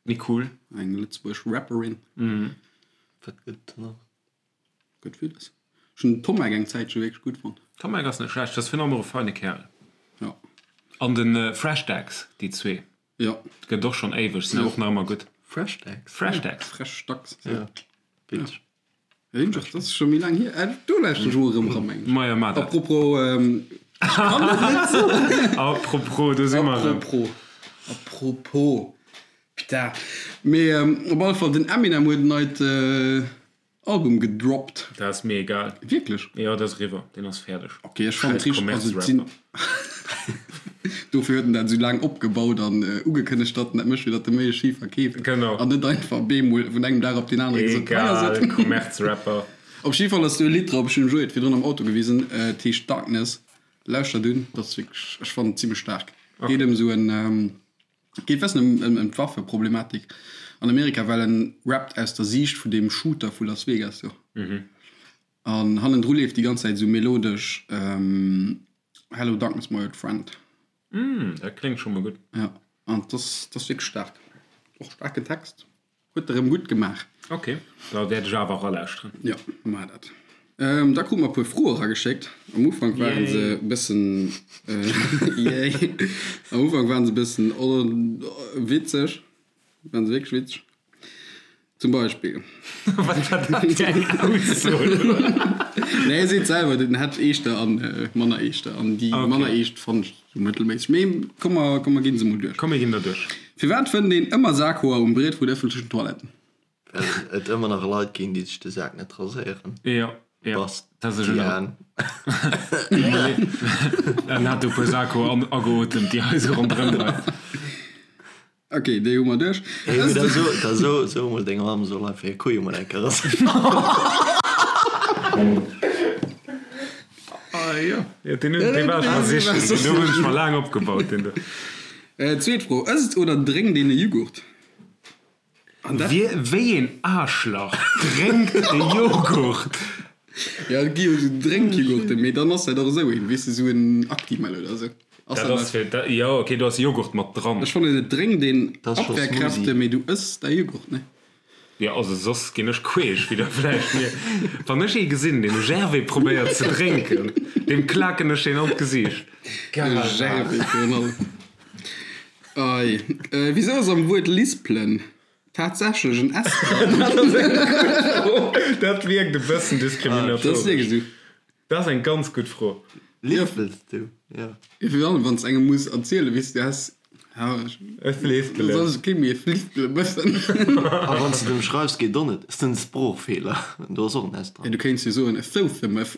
A: Nicool.
C: Eng lëtzebuergesch Rapperin.
B: Wat gëtt et nach?
C: Gëtt villes. Ech hunn den Tommek eng Zäitche wierklech gutt fonnt.
A: Tommek ass net schlecht, ass virun allem och e feine Kerl.
C: Jo.
A: An de Fresh Dax, déi zwee.
C: Jo.
A: Gëtt och schonn éiweg, sinn awer och nach ëmmer gutt.
B: Fresh Dax?
A: Fresh Dax.
C: Fresh Dax.
B: Ja, witzeg.
C: Dat ass scho méi laang hier. Äh, do lauschteren ech mol erëm eran, mengen ech.
A: Majo, maach dat.
C: Apropos, ähm, ech kann et net soen.
A: Apropos, do si mer erëm.
C: Apropos. Apropos. Putain. Mee ähm, op alle Fall, den Eminem huet en neit äh, Album gedroppt.
A: Dat ass mir egal.
C: Wierklech?
A: Jo, dat ass eriwwer. Deen ass fäerdeg.
C: Ok, ech fannen et richteg, also et sinn. Dofir huet en dat esou laang opgebaut an ugekënnegt, datt en dat mécht, fir datt e méi schi verkeeft.
A: Genau.
C: An net einfach bemol vun engem Dag op deen anere gesot, hei ass et.
A: Egal, Kommerzrapper.
C: Op jidde Fall ass do e Lidd drop, ech hunn dem Joé et virdrun am Auto gewisen, et heescht Darkness. Lauschtert un, dat ass wierklech, ech fannen et zimmlech staark. Geet ëm esou en, geet bessen ëm ëm d'Waffeproblematik an Amerika, well en rappt aus der Siicht vun deem Shooter vu Las Vegas do. An hannendru leeft déi ganz Zäit esou melodesch Hello Darkness my old friend.
A: Mm, dat kléngt scho mol gutt.
C: Ja, an dat ass, dat ass wierklech staark. Och staarken Text. Huet e rëm gutt gemaach.
A: Ok, da wäert ech awer eralauschteren.
C: Jo, maach dat. Ähm, da krute mer e puer Froe erageschéckt. Am Ufank waren se e bëssen, yay, am Ufank waren se e bëssen witzeg. Waren se wierklech witzeg. Zum Beispill.
A: Wat war dat fir eng Ausso?
C: Nee, hie seet selwer, den hätt eeschter an manner eeschter. An déi manner eescht fannen ech sou mëttelméisseg. Mee komm mer, komm mer ginn se mol duerch.
A: Komm mir ginn der duerch.
C: Firwat fënnt een ëmmer Sakhoer um Briet vun ëffentlechen Toiletten?
B: Well et ëmmer nach Leit ginn, déi sech de Sak net raséieren.
A: Jo, jo.
B: Bastian.
A: En hat e puer Sakhoer ageotemt, déi hei sou ronderëm leien.
C: Ok, déi hu mer duerch.
B: Hey, mee da so, da so, so mol denger Mamm soll einfach hir Kuje mol eng Kéier raséieren.
A: Ah jo, jo deen hunn, dee war ech mer sichen, deen do hunn ech mer laang opgebaut, deen do.
C: Zweet Fro, Ësst oder drénkt een e Jughurt? An dat.
A: Wie, wéi een Aarschlach drénkt e Joghurt?
C: Jo, et gi jo esou Drénkjughurten, mee dann ass dat och esou een, weess de, esou en Actimel oder esou. Ass
A: Dat
C: dat
A: ass fir, dat, jo, okay, do ass Joghurt mat dran.
C: Ech fannen, et drénkt een
B: Dat ass scho
C: Abwehrkräfte,
B: Smoothie.
C: mee du ëss däi Jughurt, ne?
A: Jo, also soss ginn ech queesch, wéi der vläicht mierkt. Wann ech ee gesinn, deen e Gervais probéiert ze drénken, deem klaken ech deen an d'Gesiicht.
C: E Gervais virun allem. Ei, wisou ass am Wuert lispelen tatsächlech en S dran?
A: Dat ass eng gutt Fro. Dat wierkt e bëssen
C: Dat ass
A: diskriminatoresch.
C: wierklech esou.
A: Dat ass eng ganz gutt Fro.
B: Lispels du? Jo.
C: Jo, virun allem wann s engem muss erzielen, weess du, du has, ja,
A: Ech lispelen.
C: soll ech kee méi e lispele bëssen?
B: A wann s de dem schreifs, geet och net. Ass den Sproochfeeler. Do ass och en S
C: Ja,
B: dran.
C: du kéints jo soen, e Southemëff.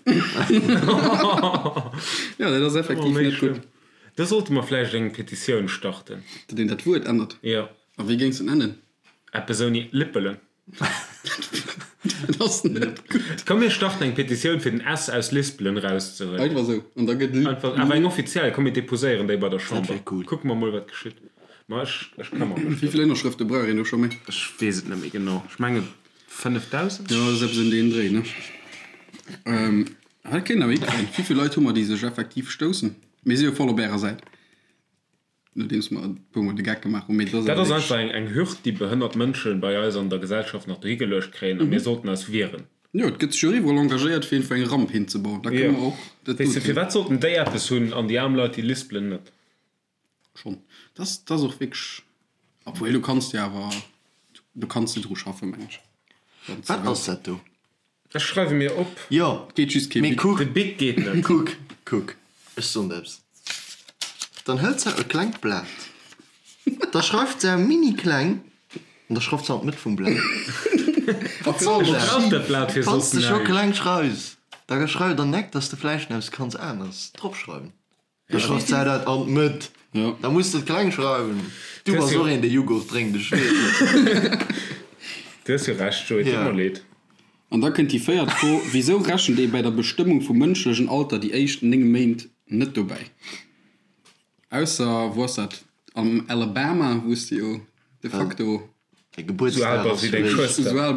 C: Jo, dat ass effektiv
A: Oh, méi
C: net gutt.
A: schlëmm. Do sollte mer vläicht eng Petitioun starten.
C: Datt een dat Wuert ännert?
A: Jo.
C: A wéi géings de en nennen?
A: Eppes ouni Lippelen.
C: Dat ass net gutt.
A: Komm mir starten eng Petitioun fir den S aus Lispelen erauszehuelen.
C: Einfach esou. An da gëtt Li.
A: Einfach, awer eng offiziell. Komm mir deposéieren déi bei der Chamber.
B: Dat wär cool.
A: Kucke mer mol wat geschitt. Ma ech, ech këmmer mech
C: Wéi
A: drëm.
C: vill Ënnerschrëfte brauch een do scho méi?
A: Ech weess et net méi genau. Ech menge 5.000?
C: Jo, dat ass eppes ëm deen Dréi, ne? Dat kéint awer hikréien. Wéi vill Leit hu mer, déi sech effektiv stoussen? Mir si jo voll op ärer Säit, nodeems mer e puer Mol de Geck gemaach hunn. Mee dat ass
A: Dat
C: awer
A: ass
C: wierklech.
A: einfach eng, eng Hürd, déi behënnert Mënsche bei eis an der Gesellschaft nach dohi geluecht kréien a mir sollten eis wieren.
C: Jo, et gëtt sech jo iwwerall engagéiert, fir einfach eng Ramp hinzebauen. Da kënne
A: Jo.
C: mer och dat
A: Weess de,
C: doten.
A: firwat sollten déi eppes hunn an déi aarm Leit, déi lispelen, net?
C: Schonn. Dat ass, dat ass och wierklech. Obwuel, du kanns jo awer, du kanns de dru schaffen, meng ech. Wann s de
B: Wat
C: wëlls.
B: ass dat do?
A: Ech schreiwe mir op.
B: Jo,
C: Geet just kee
B: mee
C: Bic.
B: kuck,
A: De Bic geet net.
B: kuck, kuck, ech soen der eppes. Dann hëlt se e klengt Blat, da schreift se mini kleng an da schreift se an d'Mëtt vum Blat. Wat soll dat?
A: Brauch dat Blat fir
B: Wann s
A: soss
B: de scho
A: näischt.
B: kleng schreifs, da schreif dann neck, dass de vläicht eppes kanns aneres dropschreiwen. Da schreift se dat an d'Mëtt. Da muss de et kleng schreiwen. Du bass och een, dee Jughurt drénkt, ech weess et.
A: Du hues jo Recht, Joé, et deet mer leed.
C: An da kënnt déi véiert Fro, Wisou rechent ee bäi der Bestëmmung vum mënschlechen Alter déi éischt 9 Méint net dobäi? Ausser, wou ass dat, am Alabama, wou s de jo de facto
B: Däi
A: Sou al
B: Gebuertsdag
A: bass
B: ass
A: wéi deng
B: réischt.
A: Schwëster.
C: sou al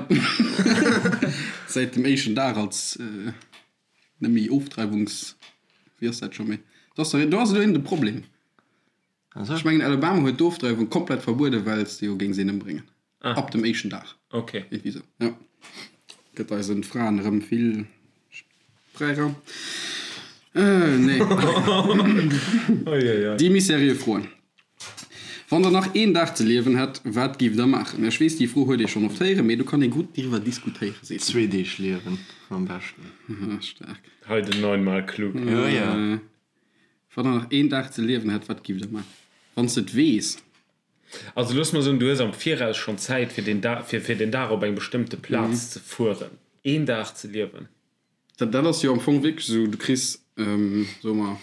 C: säit dem éischten Dag als Net méi Ofdreiwungs, wéi ass dat scho méi? Do ass do ass elo een de Problem. Ech mengen Alabama huet d'Ofdreiwung komplett verbueden, well s de jo géings een ëmbréngen. Ab dem éischten Dag.
A: Ok.
C: Iergendwéi sou, jo. Gëtt eisen Fraen erëm vill Fräiraum. Nee. Déi méi seriö Froen. Wann der nach een Dag ze liewen hätt, wat giff der maachen? Ech weess, déi Fro huet ee schonn oft héieren, mee do kann ee gutt driwwer diskutéieren,
B: seet en. Zwee Deeg liewen am beschten.
C: Staark.
A: Hei den neunmal klug.
B: Jo, jo.
C: Wann der nach een Dag ze liewen hätt, wat giff der maachen? Wann s de et weess.
A: Also looss mer soen, du hues am Viraus schonn Zäit fir deen Dag, fir fir den Dag op eng bestëmmte Plaz ze fueren. Een Dag ze liewen.
C: Dat dat ass jo am Fong wierklech esou, du kriss, soe mer,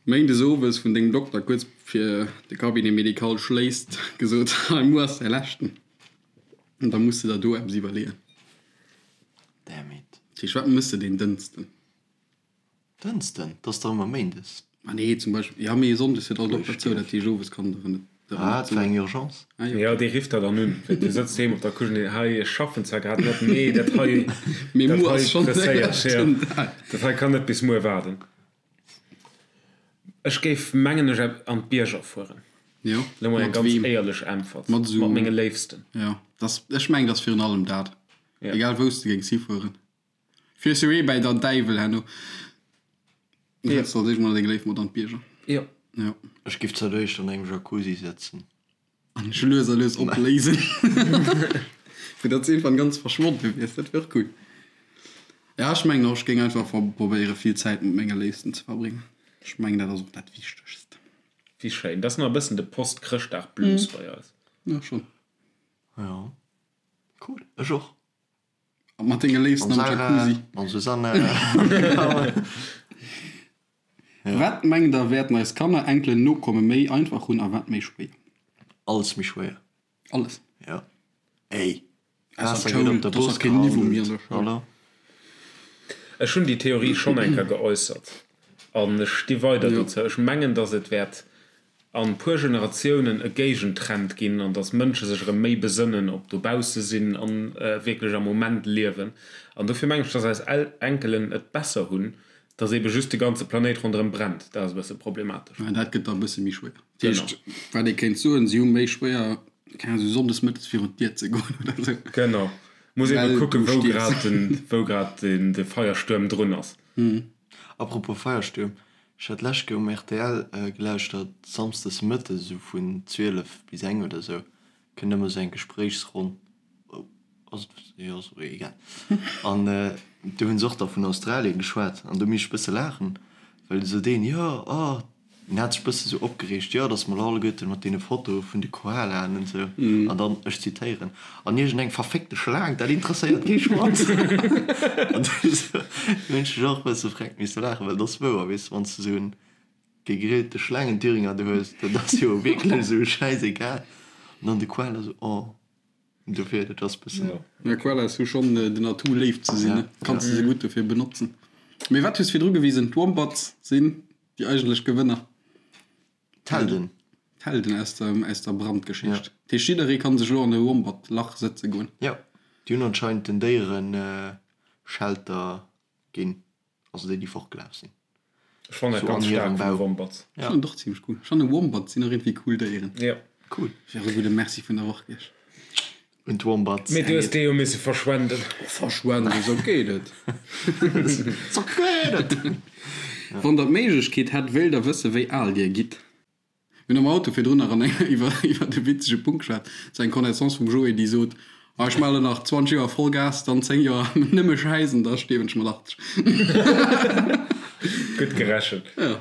C: méindes owes vun dengem Dokter kuerz fir de Cabinet médical schléisst gesot, hei muer ass däi leschten. An da muss de der do eppes iwwerleeën.
B: Damn it.
C: Dat heescht, wat mëss de deen Dënsten?
B: Dënsten? Dat ass dach ëmmer méindes.
C: Ma nee, zum Beispill, jo, mee sonndes huet all Dokter zou, dat heescht owes kann der net.
B: Ah, et war eng Urgence.
C: Ah jo.
A: Jo, dee rifft der dann un. Du sëtz doheem op der Couche an deen, hei, ech schaffen zwar grad net, mee dat hei,
C: Mee
A: dat
C: muer
A: hei
C: ass schonn däi
A: presséiert, jo,
C: leschten Dag.
A: dat hei kann net bis muer waarden. Ech géif, mengen ech, an d'Bierger fueren.
C: Jo,
A: Lo mol eng
C: mat
A: ganz
C: weem?
A: éierlech Äntwert.
C: Mat esou.
A: Mat menge Léifsten.
C: Jo, dass, ech mengen, dass virun allem dat.
A: Ja.
C: Egal wou s de géings hifueren. Fiers jo ee bäi der Däiwel herno. Du häls als éischt mol deng Léif mat an d'Bierger.
A: Jo.
C: Jo.
B: Ech giff zur d'éischt an engem Jacuzzi sëtzen.
C: An dech lues a lues opléisen. Fir datt s iergendwann ganz verschwonne wiers. Dat wier och cool. Ja, ech mengen och, ech géing einfach probéiere vill Zäit mat menge Léifsten ze verbréngen. Ech mengen, dat ass och dat Wichtegst.
A: Wéi schéin. Dat ass nach e bëssen de Post-Chrëschtdag-Blues bei eis.
C: Jo, schonn.
B: Jo. Cool. Ech och.
C: A mat denge Léifsten am Jacuzzi.
B: Mam Susanne.
C: Wat mengt der, wäerten eis Kanner, Enkelen, Nokomme méi einfach hunn a wat méi schwéier?
B: Alles méi schwéier.
C: Alles?
B: Jo. Ey,
C: Ausser
B: Waasser gëtt
C: d'Schoul,
B: op der
C: et ass
B: Bourse
C: nach keen Niveau méi an
B: gehandelt.
C: der Schoul.
B: Hallo?
A: Ech hunn déi Theorie schonn eng Kéier geäussert an ech sti weider
C: Jo.
A: dozou. Ech mengen, datt et wäert an puer Generatiounen e Géigentrend ginn an dass Mënsche sech erëm méi besënnen op dobausse sinn an wierklech am Moment liewen. An dofir mengen ech, dass eis Enkelen et besser hunn, dass ebe just de ganze Planéit ronderëm brennt. Dat ass e bësse problematesch.
C: Mä dat gëtt da e bësse méi schwéier. Dat heescht, wat ee kéint soen, si hu méi schwéier, keng Ahnung, esou sonndes mëttes virun d'Dier ze goen oder esou.
A: Genau. Muss ebe
C: Well
A: kucken,
C: du
A: wou
C: stierfs.
A: grad den, wou grad den, de Feierstuerm drun ass.
B: Apropos Feierstuerm, Ech hat d'lescht Kéier um rtl gelauschtert, samsdes mëttes esou vun 12 bis eng oder esou, kënnt ëmmer esou eng Gespréichsronn, ass et, jo ass och egal, an do hunn se och da vun Australien geschwat an do misst ech bësse laachen, well esou deen, jo, oh, deen hat sech bësse sou opgereegt, jo, datt mer elo alleguerten mat deene Fotoe vun de Koalaen an esou, an dann, ech zitéieren, an iergendeng verféckte Schlaang, dat interesséiert kee Schwanz. An du hunn ech och e bësse freck misse laachen, well dat ass wouer, weess de, wann s de esou en gegrillte Schlaangenthüringer do hues, dat ass jo wierklech esou schäisegal. An dann de Koala esou, oh. Dofir, dat ass bëssen.
C: Ja, Koalas hu schonn den Atout léif ze sinn, ne? Kanns de se gutt dofir benotzen. Mee wat hues virdru gewisen, d'Wombats sinn déi eigentlech Gewënner.
B: D'Helden.
C: D'Helden aus der, aus der Brandgeschicht. Dat heescht, jidderee kann sech elo an e Wombat-Lach sëtze goen.
B: Jo, déi hunn anscheinend den Déieren Shelter ginn, also déi, déi fortgelaf sinn.
A: Ech fannen dat
B: So an
A: ganz
B: hirem
A: staark vun de
B: Bau.
A: Wombats.
C: Ech fannen et och zimmlech cool. Ech fannen Wombats sinn och iergendwéi cool Déieren.
A: Jo.
B: Cool.
C: Wär e gudde Merci vun der Woch gewiescht.
B: Un d'Wombats.
A: Mee du hues dee jo misse verschwenden.
C: Verschwenden, esou geet et.
B: Esou geet et!
C: Wann der d'Méiglechkeet hätt, wéilt der wësse wéi al dir gitt? Mir hunn am Auto virdrun nach an enger iwwer iwwer e witzege Punkt geschwat. Et war eng Connaissance vum Joé, déi sot, Ah, ech maache lo nach 20 Joer Vollgas, dann 10 Joer nëmme Schäiss an da stierwen ech mat 80.
A: Gutt gerechent.
C: Jo,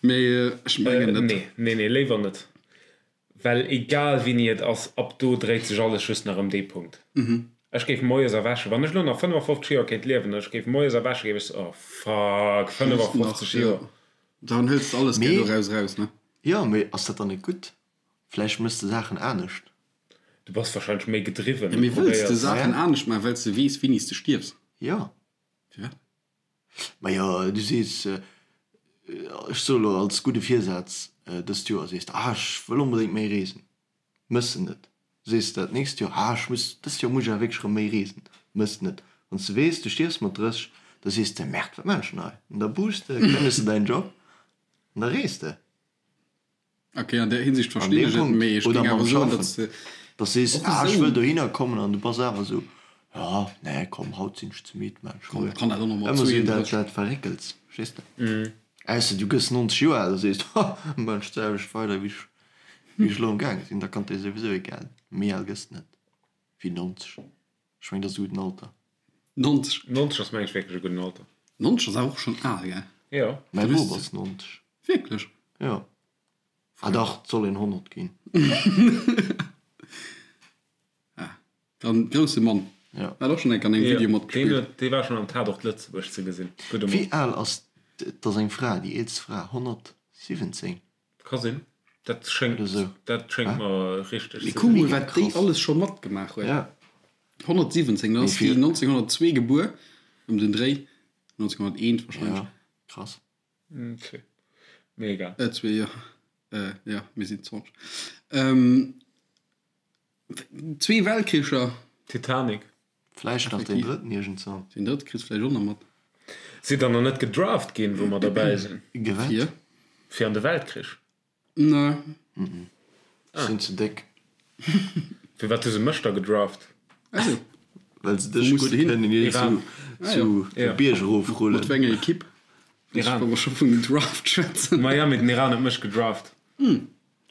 C: mee ech mengen net.
A: Nee, nee, nee, léiwer net. Well egal wéini et ass, ab do dréit sech alles just nach ëm dee Punkt. Ech géif moies erwächen, wann ech elo nach 55 Joer kéint liewen, ech géif moies erwächen, géif ech soen, oh fuck, 55 Joer.
C: Dann hëls de alles gär doraus eraus, ne?
B: Jo, mee ass dat dann net gutt? Vläicht mëss de Saachen anescht.
A: Du bass wahrscheinlech méi gedriwwen.
C: Jo, mee wëlls de Saachen anescht maachen, well s de weess, wéini s de stierfs?
B: Jo.
C: Firwat?
B: Majo, du sees, ech soe lo als gudde Virsaz dëst Joer, sees de, ah ech wëll onbedéngt méi reesen, mëss de net. Sees de dat nächst Joer, ah ech muss, dëst Joer muss ech awer wierklech erëm méi reesen, mëss de net. Wann s de weess, du stierfs mat 30, da sees de, Merde, wat maan ech denn hei? An da buchs de, kënnegst de däin Job an da rees de.
C: Ok, an där Hinsicht
B: An
C: verstinn
B: deem
C: ech et,
B: Punkt.
C: mee ech
B: Oder
C: géing
B: mam
C: awer soen,
B: Schaffen.
C: datt se
B: Dass sees,
C: och
B: ah, ech
C: esou.
B: wëll dohinner kommen an du bass awer esou, ja, nee, komm, haut sinn ech ze midd, maan ech
C: Komm,
B: muer.
C: kann dat och nach mat
B: Ëmmer esou dat,
C: 32.
B: dat Verréckels, verstees de? Ausser du gëss 90 Joer al a sees, ha, maan ech d'selwecht weider, wéi ech, wéi ech elo am gaange sinn. Da kann et dir souwisou egal, méi al gëss de net wéi 90. Ech mengen, dat ass e gudden Alter.
C: 90.
A: 90 ass mengen ech wierklech e gudden Alter.
C: 90 ass awer och schonn al, gell?
A: Jo.
B: Mäi Bop ass 90.
C: Wierklech?
B: Jo. Ah dach, et soll een 100 ginn.
C: Ah, dann grousse Mann.
B: Ja.
C: Hat och schonn eng Kéier an engem Video
A: Deen
C: matgespillt.
A: huet, dee war schonn am Tatort Lëtzebuerg ze gesinn. Gudde
B: Wéi
A: Mann.
B: al ass, et ass eng Fra, déi eelst Fra, 117?
A: Ka sinn. Dat schéngt,
B: Oder sou.
A: dat schéngt mer richteg
C: Mee
A: ze
C: kuck
A: sinn.
C: mol,
B: Mega
C: wat déi
B: krass.
C: alles scho matgemaach huet.
B: Ja.
C: 117, dann
B: Mee
C: ass déi
B: fir.
C: 1902 gebuer, ëm den Dréi, 1901 wahrscheinlech.
B: Ja, krass.
A: Zwee. Mee egal.
C: Äh, zwee, jo. Äh, jo, mir sinn 20. Ähm, zwee Weltkricher.
A: Titanic.
B: Vläicht nach deen drëtten iergendzwann.
C: Deen drëtte kriss vläicht och nach mat.
A: Sidd der nach net gedraft ginn, wou mer derbäi sinn?
B: Gewat?
C: Fir?
A: Fir an de Weltkrich.
C: Nee.
B: Ech sinn ze déck.
A: Firwat hu se mech da gedraft?
C: Also.
B: Well se
C: Wou
B: dech
C: muss
B: gutt
C: de hin?
B: kënnen iergend
A: Iran.
B: zu
A: Ja.
B: de Bierg erofrullen.
C: Mat wéi enger Ekipp?
A: Iran.
C: Wa mer scho vun Draft schwätzen.
A: Miami, den Iran huet mech gedraft.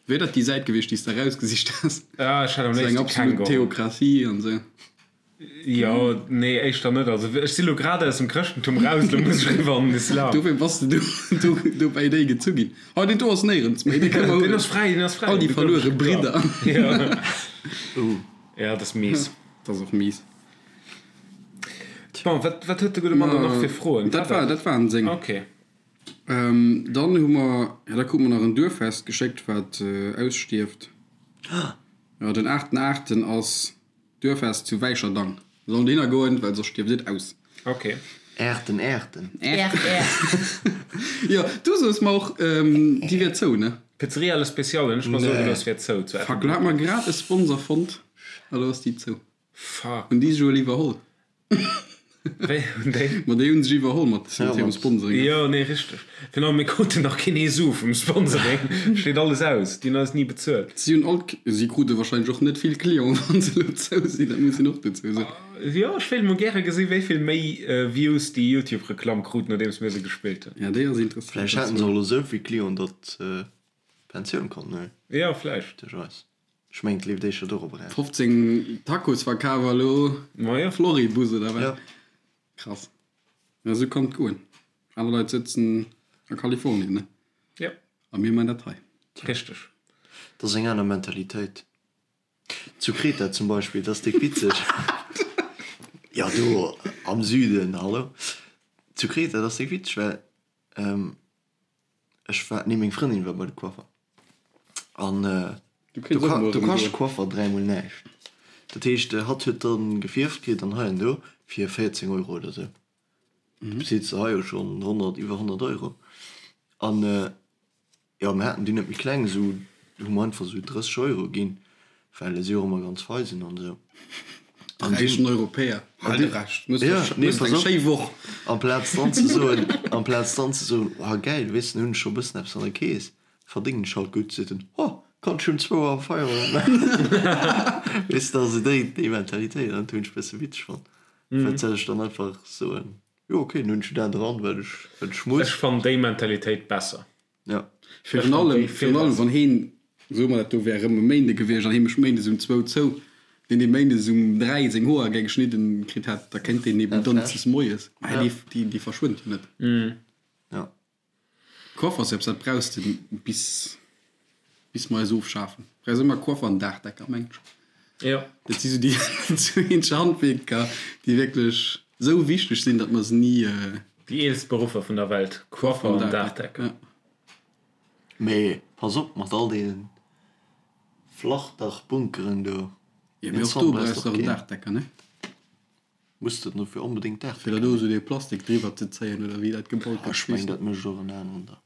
C: Wier dat déi Säit gewiescht, déi s de erausgesicht has?
A: Ah, ech hätt am
C: Sou eng
A: léifste keng
C: absolut
A: geholl.
C: Theokratie an sou.
A: Jo, nee, éischter net. Also ech si lo grad aus dem Chrëschtentum raus, lo muss ech eriwwer an den Islam.
C: Dofir bass de do, do bäi déi gezu ginn. Oh, deen do ass néierens méi, dee kënne mer
A: Deen
C: huelen.
A: ass fräi, deen ass fräi.
C: All déi verluere Bridder.
A: Ja. Ja, dat ass mies.
C: Dat ass och mies.
A: Bon, wat, wat huet de gudde Mann dann nach fir Froen?
C: Dat war, dat waren seng.
A: Okay.
C: Dann hu mer, jo, da krute mer nach en Duerffest geschéckt, wat ausstierft. Jo, den aachten aachten ass Duerffest zu Wäicherdang. Mir sollen dohinner goen, well soss stierft et aus.
A: Ok.
B: Äerten, Äerten.
D: Äert, Äert.
C: Jo, du soos mer och, déi wier zou, ne?
A: Pizzeria Le Special hunn ech mer soe gelooss, wier zou zu
C: Fuck, lo hat mer grad e Sponsor fonnt a lo ass déi zou.
A: Fuck.
C: Hunn déi sech ewell iwwerholl?
A: Wéi hunn déi?
C: Ma déi hunn sech iwwerholl mat hirem Sponsoring.
A: Jo, nee, richteg. Virun allem, mir kruten nach keen ee Su vum Sponsoring. Steet alles aus. Déi hunn eis ni bezuelt.
C: Si hunn all, si krute wahrscheinlech och net vill Clienten, wann se elo zou sinn, dat muss een och dozou soen.
A: Jo, ech wéilt mol gäre gesinn, wéi vill méi Views déi Youtube-Reklamm krut, nodeems mir se gespillt hunn.
C: Ja, déi ass interessant.
B: Vläicht haten se och elo esou vill Clienten, datt se Pensioun konnten huelen.
A: Jo, vläicht.
B: Duerch eis. Ech mengen, et leeft éischter dorop eraus.
C: 15 Tacos verkaf a lo
A: Majo.
C: Floribus oder wat?
B: Ja.
C: Krass. Ja, esou kann et goen. Aner Leit sëtzen a Kalifornien, ne?
A: Ja.
C: A mir man dat hei.
A: Richteg.
B: Dat ass eng aner Mentalitéit. Zu Kreta zum Beispill, dat ass déck witzeg. Jo, do am Süden, hallo. Zu Kreta, dat ass déck witzeg, well Ech war, nee meng Frëndin war bei de Coiffer an do kascht de Coiffer dräimol näischt. Dat heescht hatt huet dann gefierft kritt an hei an do fir 14 Euro oder sou. Du bezils de hei jo schonn 100, iwwer 100 Euro. An jo mir haten dunn net méi kleng, sou hu mer einfach sou 30 Euro ginn, well si och ëmmer ganz fei sinn an esou.
C: De räichen Europäer, hal de Rescht, muss
B: Ja, nee,
C: eng
B: pass op.
C: schéi Woch.
B: Amplaz dann ze soen, amplaz dann ze soen, oh gäil, weess de, hunn ech scho e bëssen eppes an der Kees, verdéngen ech halt gutt, seet en, oh, kann ech um zwou Auer Feierowend maachen. Weess de, also déi, déi Mentalitéit, an dat hunn ech e bësse witzeg fonnt. Wat soll ech dann einfach soen, jo okay, dann hunn ech jo dat dran, wat ech, wat ech muss.
A: Ech fannen déi Mentalitéit besser.
B: Ja.
C: Virun allem, virun allem wann heen, soe mer dat do wär erëm e Méinde gewiescht an hee mécht méindes um zwou zou, deen dee méindes um 3 seng Hoer geng geschnidden kritt hätt, da kéint deen eben donneschdes moies, mä déi, déi, déi verschwënnt jo net.
B: Ja.
C: Coiffersëps, dat brauchs de bis, bis mer eis ofschafen. Brauchs ëmmer Coiffer an Daachdecker, mengen ech.
A: Jo.
C: Dat si sou déi zwou eenzeg Handwierker, déi wierklech sou wichteg sinn, datt mer se ni.
A: Déi eelst Beruffer vun der Welt, Coiffer an Daachdecker.
C: Ja.
B: Mee pass op mat all deenen Flachdachbunkeren do.
C: Jo, mee och do brauchs de och en Daachdecker, ne?
B: Muss de dofir onbedéngt
C: Fir
B: Daachdecker
C: da do sou dee Plastik driwwer ze zéien oder wéi dat gebaut gëtt.
B: Ech mengen dat mécht och en aneren da.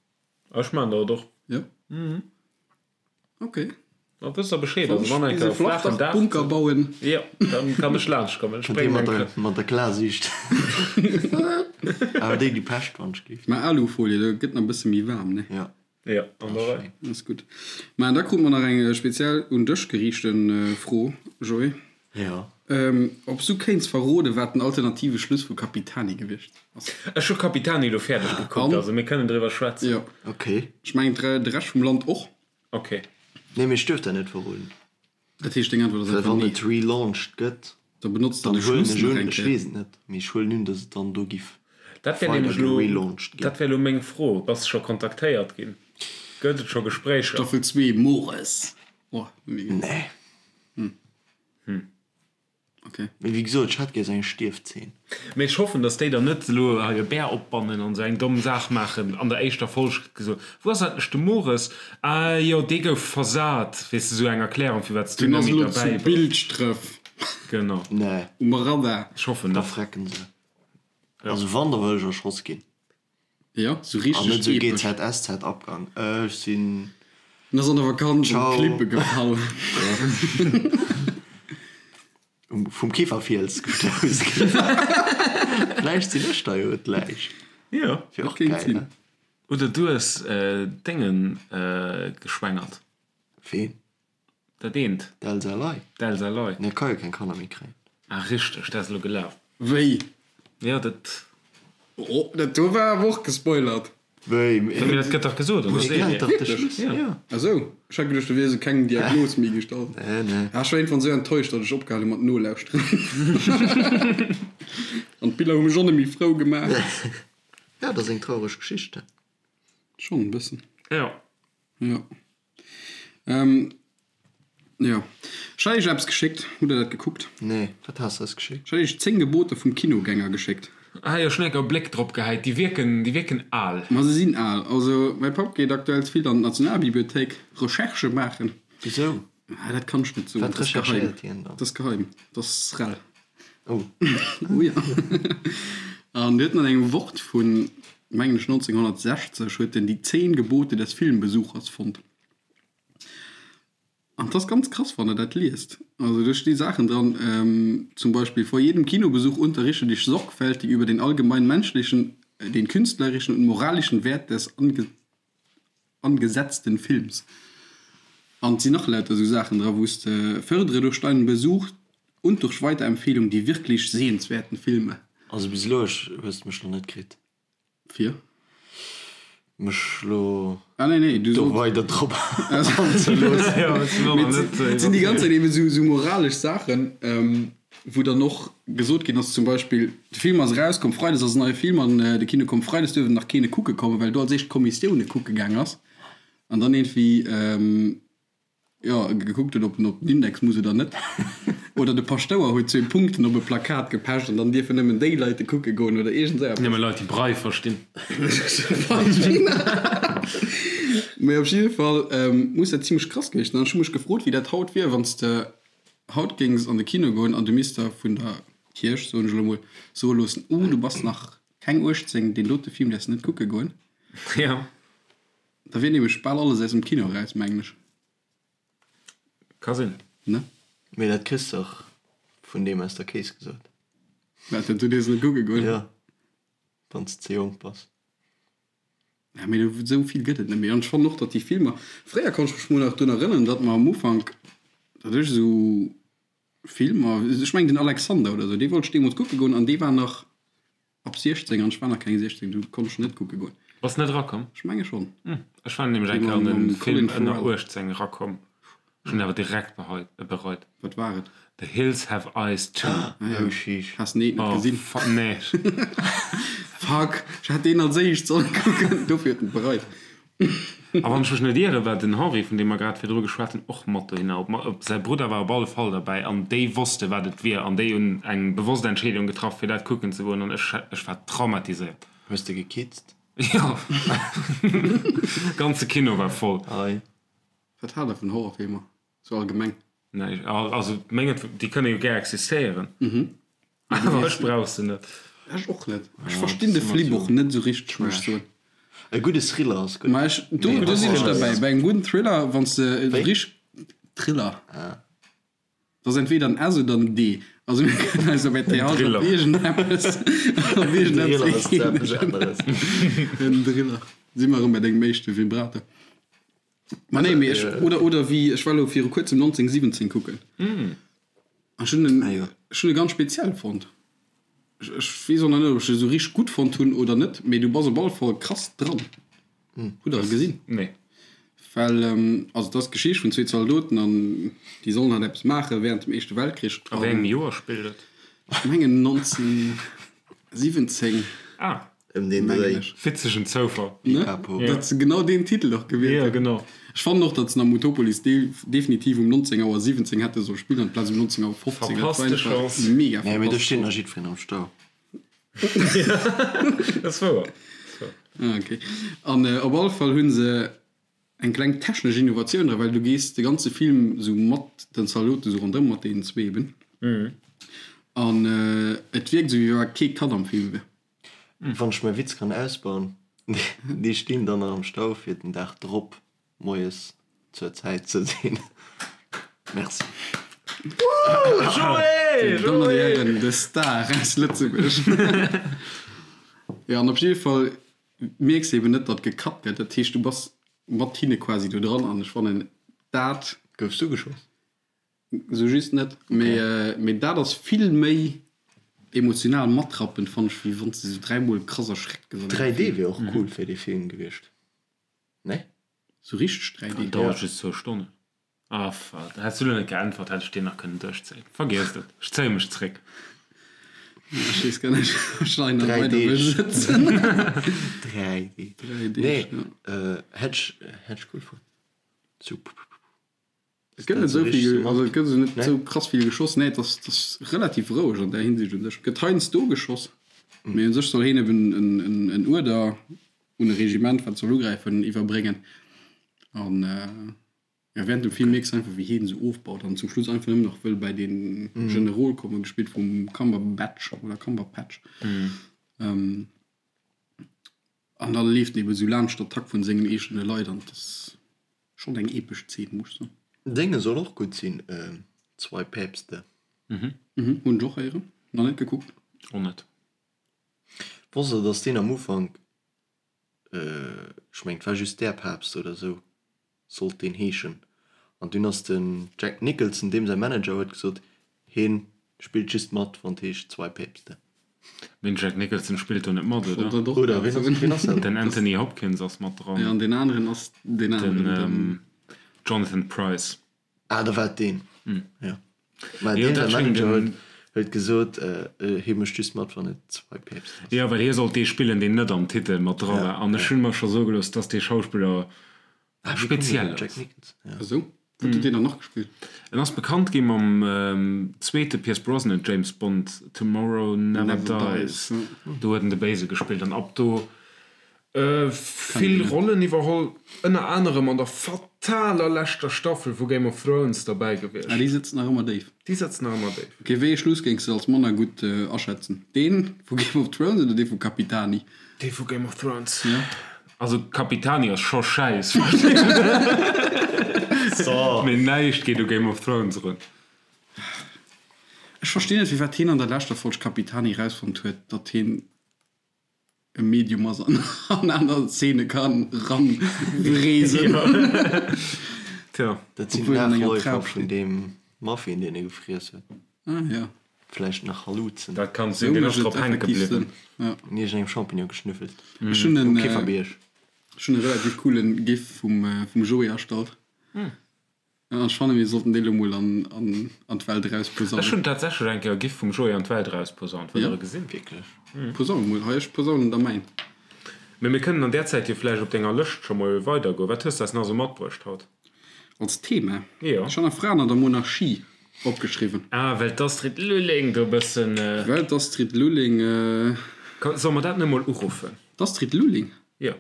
A: Ech maan dat och.
C: Jo? Ok.
A: Da wësst der Bescheed. Also wann eng
C: Bis e
A: Kéier flaachen Daach.
C: Flachdach-Bunker bauen.
A: Jo, dann kann ech laanscht kommen. Ech
B: Kënnt dir
A: bréngen
B: mat
A: eng
B: der,
A: Kë.
B: mat der Klarsiicht. Awer déi, déi Pescht, wann ech gleeft.
C: Mä Alufolie, do gëtt nach e bësse méi waarm, ne?
B: Jo.
A: Jo, an der Rei.
C: Ass gutt. Mä da krute mer nach eng speziell un dech geriichte Fro, Joé.
B: Jo.
C: Ob s du kéints verroden, wat den alternative Schluss vu Capitani gewiescht ass?
A: Ech hu Capitani elo fäerdeg gekuckt, also mir kënnen driwwer schwätzen.
C: Jo.
B: Ok.
C: Ech mengen de Rescht vum Land och.
A: Ok.
B: Nee, mee ech duerf dat net verroden.
C: Dat heescht, deng Äntwert ass
B: Well
C: einfach
B: wann
C: nee.
B: et relaunched gëtt,
C: Da benotzt der
B: dann
C: de
B: huelen
C: Schluss
B: ech
C: nach
B: un,
C: eng
B: ech
C: Kéier.
B: weess et net, mee ech huelen un, datt et dann do giff
A: Dat wär
B: weider
A: nämlech elo,
B: gerelaunched ginn.
A: dat wär elo meng Fro. Bass de scho kontaktéiert ginn? Gëtt et scho Gespréicher?
C: Staffel 2, Mores. Oh, méi gutt.
B: Nee.
C: Okay.
B: Mee wéi gesot, ech hätt gär esou eng Stierfzeen.
A: Mee ech hoffen, dass déi dann net elo hei e Bär opbannen an esou eng domm Saach maachen. An der éischter Folg gëtt gesot, Wou ass eigentlech de Mores? Ah jo, dee gouf versat. Weess de, esou eng Erklärung, firwat s du
C: Deen
A: net
C: ass
A: méi
C: elo zu
A: derbäi bass.
C: Bilschdref
A: Genau.
B: Nee.
C: um Radar.
A: Ech hoffen
B: Da
A: net.
B: frecken se. Also wann, da wëll ech erschoss ginn.
C: Jo, sou
B: An
C: richteg
B: net sou
C: epesch.
B: GZSZ Abgang. Ech sinn.
C: En ass an der Vakanz op
B: Ciao.
C: d'Klippe gefall.
B: Vum Kieferfiels gestouss ginn. Vläicht sinn ech da jo d'Läich.
A: Jo.
B: Wier och
C: Kéint
B: gäil,
C: sinn.
B: ne?
A: Oder du hues Déngen geschwängert.
B: Ween?
A: Dat eent.
B: D'Elsa Ley.
A: D'Elsa Ley.
B: Nee, ka jo keng Kanner méi kréien.
A: Ah richteg, dat ass elo gelaf.
C: Wéi?
A: Jo, dat.
C: Oh, dat do war awer och gespoilert.
B: Wéi?
A: Mee dat gëtt dach gesot an der Serie.
B: Wierklech?
A: Jo.
C: Ah sou, ech hat geduecht, do wier esou keng Diagnos méi gestallt.
B: Nee, nee.
C: Ah, ech war iergendwann esou enttäuscht, datt ech opgehal hu mat nolauschteren. An d'Biller hu mech och net méi frou gemaach.
B: Ja, dat ass eng traureg Geschicht.
C: Schonn e bëssen.
A: Jo.
C: Jo. Ähm, jo. Ech hat iech eppes geschéckt. Hutt der dat gekuckt?
B: Nee, wat has de eis geschéckt?
C: Ech hat iech 10 Gebote vum Kinogänger geschéckt.
A: Ah jo, ech hunn enker e Bléck drop gehäit. Déi wierken, déi wierken al.
C: Ma se sinn al. Also, mäi Papp geet aktuell vill an d'Nationalbibliothéik Recherchë maachen.
B: Wisou?
C: Ah, dat kann ech net soen.
B: Wat
C: Dat ass geheim.
B: recherchéiert hien dann?
C: Dat ass geheim. Dat ass rel.
B: Oh.
C: Oh ja. An huet an engem Wort vun, mengen ech, 1960 huet en die zehn Gebote des Filmbesuchers fonnt. An 't ass ganz krass, wann der dat liest. Also do sti Saachen dran, zum Beispill, Vor jedem Kinobesuch unterrichte dich sorgfältig über den allgemein menschlichen, den künstlerischen und moralischen Wert des angesetzten Films. An et sinn nach lauter esou Saachen dra wou s de Fördere durch deinen Besuch und durch Weiterempfehlung die wirklich sehenswerten Filme.
B: Also bis elo hues de mech nach net kritt.
C: Fir?
B: Mech elo
C: Ah nee, nee, du
B: do
C: solls.
B: weider drop anzeloossen.
C: Mee et sinn déi ganz Zäit eben esou moralesch Saachen, wou dann och gesot ginn ass, zum Beispill, de Film ass erauskomm, freides ass en neie Film an de Kino komm, freides duerf en nach keene kucke kommen, well do als éischt d'Kommissioune kucke gaang ass an dann iergendwéi, jo, gekuckt huet, ob en op den Index muss oder net. Oder de Paschtouer huet zwee Punkten op e Plakat gepecht an dann dierfen nëmmen déi Leit e kucke goen oder iergend esou eppes.
A: Nëmme Leit, déi Braille verstinn.
C: Mee op jidde Fall muss dat zimmlech krass gewiescht sinn. An ech hu mech gefrot, wéi dat haut wier, wann s de haut géings an de Kino goen an du misst der vun der Kierch, soen ech elo mol, soe loossen, Oh, du bass nach keng 18, deen dote Film däerfs de net kucke goen.
A: Jo.
C: Da wier nämlech bal alles aus dem Kino eraus, mengen ech.
A: Ka sinn.
C: Ne?
B: Mee dat kriss dach vun deem aus der Kees gesot.
C: Wat, du dierfs net kucke goen?
B: Jo, wann s de ze jonk bass.
C: Ja, mee esou vill gëtt et net méi. An ech fannen och, datt déi Filmer, fréier konnt ech mech mol nach drun erënneren, datt mer am Ufank, datt ech esou Filmer, ech mengen den Alexander oder esou, dee wollt ech deemools kucke goen an dee war nach ab 16 an ech war nach keng 16, du konnt ech net kucke goen.
A: Bass net erakomm?
C: Ech menge schonn.
A: Ech war nämlech eng Kéier an e Film ënner 18 erakomm. Ech hunn awer direkt bereit.
C: Wat war et?
A: The Hills Have Eyes 2.
C: Ah jo.
B: Oh sheesh.
C: Has den eent net gesinn?
A: Oh fuck, nee.
C: Fuck, ech hätt deen als éischt sollen kucken, dofir huet en et bereit.
A: A wann ech mech net ieren, war den Henri, vun deem mer grad virdru geschwat hunn, och mat dohinner. Op, op säi Brudder war op alle Fall derbäi an déi wosste wat et wier an déi hunn eng bewosst Entscheedung getraff fir dat kucken ze goen an ech, ech war traumatiséiert.
B: Hues de gekitzt?
A: Jo. Ganze Kino war voll.
B: Ei.
C: Wat haalt der vun Horrorfilmer sou allgemeng?
A: Nee, also mengen, déi kënne jo gär existéieren, awer ech brauch se net.
C: Ech och net. Ech verstinn de Flip och net sou richteg, muss ech soen.
B: E gudde Thriller ass gutt.
C: Ma ech, do, do sinn ech derbäi. Bei engem gudden Thriller, wann s de
B: Wéi?
C: richt. Thriller. Dat ass entweder en S oder en D. Also mir kënnen eis op RTL op
A: Driller.
C: iergendeppes, op
B: Driller
C: iergendeppes
B: ass eppes
C: eenegen.
B: aneres.
C: En Driller. Si mer erëm bei dengem éischte Vibrator. Ma nee, mee ech, oder, oder wéi, ech war elo viru kuerzem 1917 kucken. An ech hunn en, ech hunn e ganz speziell fonnt. Ech, ech weess och nach net, ob ech e sou richteg gutt fonnt hunn oder net, mee du bass op alle Fall krass dran. Hutt der e gesinn?
A: Nee.
C: Well, also et ass d'Geschicht vun zwee Zaldoten an déi sollen halt eppes maache während dem Éischte Weltkrich.
A: A wéi engem Joer spillt et?
C: Ech mengen 1917.
A: Ah.
B: Ëm deen Dréi.
A: Witzegen Zoufall.
C: Ne? Datt se genau deen Titel och gewielt
A: hunn. Jo, genau.
C: Ech fannen och, datt se am Utopolis definitiv um 19 Auer 17 hätte solle spillen amplaz um 19 Auer 15.
A: Verpasste Chance.
C: Mega
B: Nee, mee do steet nach jiddwereen am Stau.
A: Dat ass wouer.
C: Ah, okay. An op alle Fall hu se eng kleng technesch Innovatioun dra, well du gees de ganze Film esou mat den Zaldoten esou ronderëm, mat deenen zwee eben. An et wierkt esou, wéi wa kee Cut am Film wier.
B: Wann ech mäi Witz kann ausbauen, déi stinn dann nach am Stau fir den Dag drop moies zur Zäit ze sinn. Merci.
A: Joé!
C: Dir Dammen an Dir Hären, de Star aus Lëtzebuerg. Jo, an op jidde Fall mierks de eben net, datt gecut gëtt. Dat heescht, du bass mat hinne quasi do dran an ech fannen dat.
B: Goufs du geschoss?
C: Sou just net, mee mee dat ass vill méi emotional matrappend fann ech wéi wanns de sou 3 mol krass erschreckt gëss an engem
B: 3D
C: Film.
B: wier och cool fir dee Film gewiescht, ne?
C: Sou richteg 3D.
A: An dauert just zwou Stonnen. Ah fuck, häss du lo net geäntwert, hätt ech deen nach kënnen duerchzéien. Vergiesst et, ech zéie mech zréck.
C: Ech weess gar net ob ech hei nach
B: 3
C: weider wëll
B: Deeg.
C: sëtzen.
B: 3D.
C: 3 Deeg,
B: Nee,
C: ja.
B: hätt ech hätt ech cool fonnt. Sou pupupupu.
C: Et gëtt net esou vill, also et gëtt esou net esou krass vill geschoss. Nee, et ass, et ass relativ roueg an där Hinsicht u sech. Et gëtt heiansdo geschoss, mee u sech soll heen eben en, en, en Uerder un e Regiment, wat soll ugräifen, iwwerbréngen. An ja, während dem Film mierks de einfach, wéi heen esou ofbaut an zum Schluss einfach nëmmen nach wëll bäi dee Generol kommen, gespillt vum Cumberbatch oder Cumberpatch. An da leeft en eben esou laanscht d'Attack vun sengen eegene Leit an et ass. Schon eng epesch Zeen, muss ech soen.
B: Dénge soll och gutt sinn, Zwei Päpste.
C: Mhm, hunn ech och héieren, nach net gekuckt.
A: Och net.
B: Wosst der dass deen am Ufank, ech mengen et war just Der Papst oder sou sollt deen heeschen, an dunn ass den Jack Nicholson, deem säi Manager, huet gesot heen spillt just mat wann et heescht Zwei Päpste.
A: Mee den Jack Nicholson spillt do net mat, oder?
B: Oder wien ass, wien ass dat?
A: Den Anthony Hopkins ass mat dran.
C: Jo, an deen aneren ass deen aneren, den.
A: Jonathan Pryce.
B: Ah, da war et deen. Jo. Mä deen säi Manager huet, huet gesot, hie mécht just mat, wann et Zwei Päpste ass.
A: Jo, well hie sollt dee spillen, deen net am Titel mat dra war. An ech hunn mer scho soe gelooss, dass dee Schauspiller speziell
B: Jack
A: ass.
B: Nicholson, ja.
C: Esou? Wou huet deen dann nach gespillt?
A: En ass bekannt gi mam zweete Pierce Brosnan James Bond Tomorrow Never Dies. Do huet en de Béise gespillt an ab do vill Rollen iwwerholl, ënner anerem an der fataler leschter Staffel vu Game of Thrones derbäi gewiescht.
C: Ah, déi sëtzt nach ëmmer déif.
A: Déi sëtzt nach ëmmer déif.
C: Ok, wéi ee Schluss géings de als manner gutt aschätzen? Deen vu Game of Thrones oder dee vu Capitani?
A: Dee vu Game of Thrones. Also Capitani ass scho schäiss, mee näischt geet u Game of Thrones erun.
C: Ech verstinn net firwat heen an der leschter Folg Capitani rausfonnt huet datt heen e Medium ass an an aner Szene kann ran reesen.
A: Tja.
B: Dat sinn
C: Obwuel an enger
B: d'Nachläufer
C: Trap
B: vun
C: steet.
B: deem Muffin deen e gefriess huet.
C: Ah ja.
B: Vläicht nach Haluzen.
A: Dat kann
C: Sou
A: sinn, deen ass
C: mécht et
A: drop hänke
C: effektiv
A: bliwwen.
C: Sënn. Ja.
B: Un iergendengem Champignon geschnüffelt.
C: Ech hunn
B: Um
C: en
B: Käferbierg.
C: ech hunn e relativ coolen Gif vum vum Joé erstallt. An ech fannen mir sollten dee lo mol an an an d'Welt
A: Ech
C: erausposaunen.
A: hunn tatsächlech eng Kéier e Gif vum Joé an d'Welt erausposaunt. Wëllt
C: Ja.
A: der e gesinn?
B: Wierklech?
C: Posaun mol. Hei ech posaunen der mäin.
A: Mee mir kënnen an där Zäit jo vläicht op denger Lëscht scho mol weidergoen. Wat hues de eis nach esou matbruecht haut?
C: Als Thema?
A: Jo.
C: Ech han nach Fraen an der Monarchie opgeschriwwen.
A: Ah, well d'Astrid Lulling do e bëssen.
C: Well d'Astrid Lulling.
A: Solle mer dat net mol uruffen?
C: D'Astrid Lulling?
A: Jo.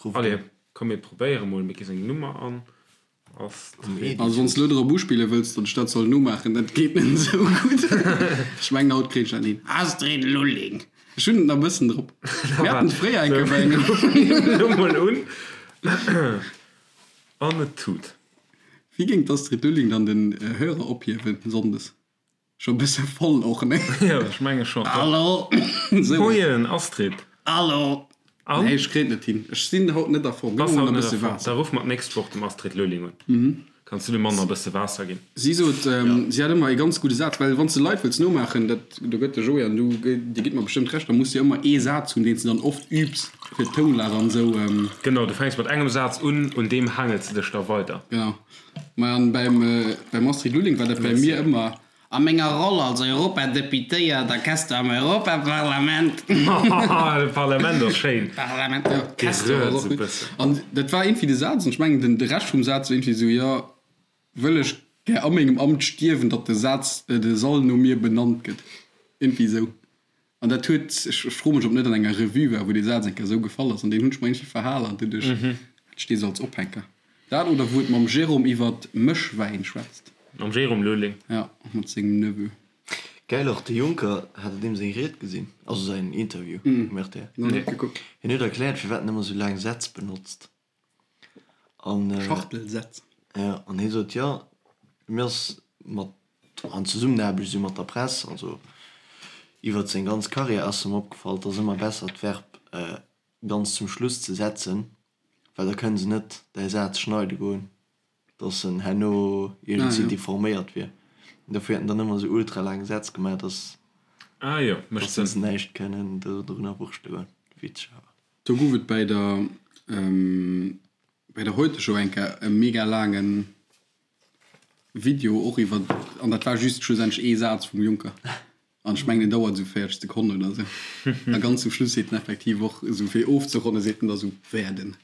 B: Ruff
A: Allez,
B: un.
A: komm mir probéiere mol, mir gi seng Nummer an. Astrid.
C: Also wann s de elo drop uspille wëlls, datt ech dat soll nomaachen, dat geet net esou gutt. Ech mengen haut kréien ech dat hin. Astrid Lulling. Ech hunn et nach e bëssen drop. Mir haten et fréier eng Kéier bei engem.
A: Elo mol un. An et tut.
C: Wéi géing d'Astrid Lulling dann den Hörer ophiewen Sonndes? Scho bësse voll och, ne?
A: Jo, ech menge scho.
C: Hallo!
A: Moien Astrid!
C: Hallo!
A: An?
C: Nee, ech kréien et net hin. Ech sinn haut net a Form.
A: Bass
C: Gëff mer
A: haut
C: e
A: net a
C: bësse
A: Form.
C: Waasser.
A: Da ruffe mer d'nächst Woch dem Astrid Lulling un. Kanns du dem Mann nach e bësse Waasser ginn?
C: Si sot, si hat ëmmer ee ganz gudde Saz, well wann s de Leit wëlls nomaachen, dat, do gëtt de Joé an du, dir gitt mer bestëmmt Recht, da muss de ëmmer ee Saz hunn, deen s de dann oft übs, fir d'Tounlag an esou.
A: Genau, du fänks mat engem Saz un, un deem haangels de dech da weider.
C: Genau. Maja, an beim, beim Astrid Lulling war dat bei mir ëmmer, A menger Roll als Europadeputéiert a Quester am Europaparlament.
A: De Parlament ass schéin.
C: Parlament, jo, Quester ass och gutt. An dat war iergendwéi de Saz, an ech mengen, den, de Rescht vum Saz war iergendwéi esou, jo, wëll ech gär a mengem Amt stierwen, datt de Saz, de Sall no mir benannt gëtt. Iergendwéi esou. An dat huet, ech froe mech, ob net an enger Revue war, wou dee Saz eng Kéier esou gefall ass, an deen hunn ech mer iergendwéi verhal an doduerch hat ech dee sou als Ophänker. Dat oder wou et mam Jérôme iwwert Mëschwäin schwätzt.
A: Mam Jérôme Lulling.
C: Ja, mat sengem Neveu.
B: Gäil och, de Juncker, hat der deem seng Ried gesinn? Also säin Interview um rtl?
C: Nach net gekuckt.
B: Hien huet erkläert, firwat en ëmmer sou laang Sätz benotzt. An.
C: Schachtelsätz.
B: Ja, an hie sot, jo, mir ass mat, an Zesummenaarbecht esou mat der Press, also iwwert seng ganz Karriär ass em opgefall, et ass ëmmer besser d'Verb ganz zum Schluss ze setzen, well da kënne se net däi Saz schneide goen, dass en herno iergendwéi deforméiert wier. An dofir huet en dann ëmmer esou ultra laang Sätz gemaach, dass
A: Ah jo, mécht
B: dass se
A: Sënn.
B: näischt kënnen dorunner wurschte goen. Witzeg awer.
C: Do gouf et bäi der bäi der Heute Show eng Kéier e mega laangen Video och iwwer, an dat war just schlussendlech ee Saz vum Juncker. An ech mengen, deen dauert esou 40 Sekonnen oder esou. A ganz zum Schluss seet en effektiv och esou, fir ofzeronnen, seet en da esou, werden.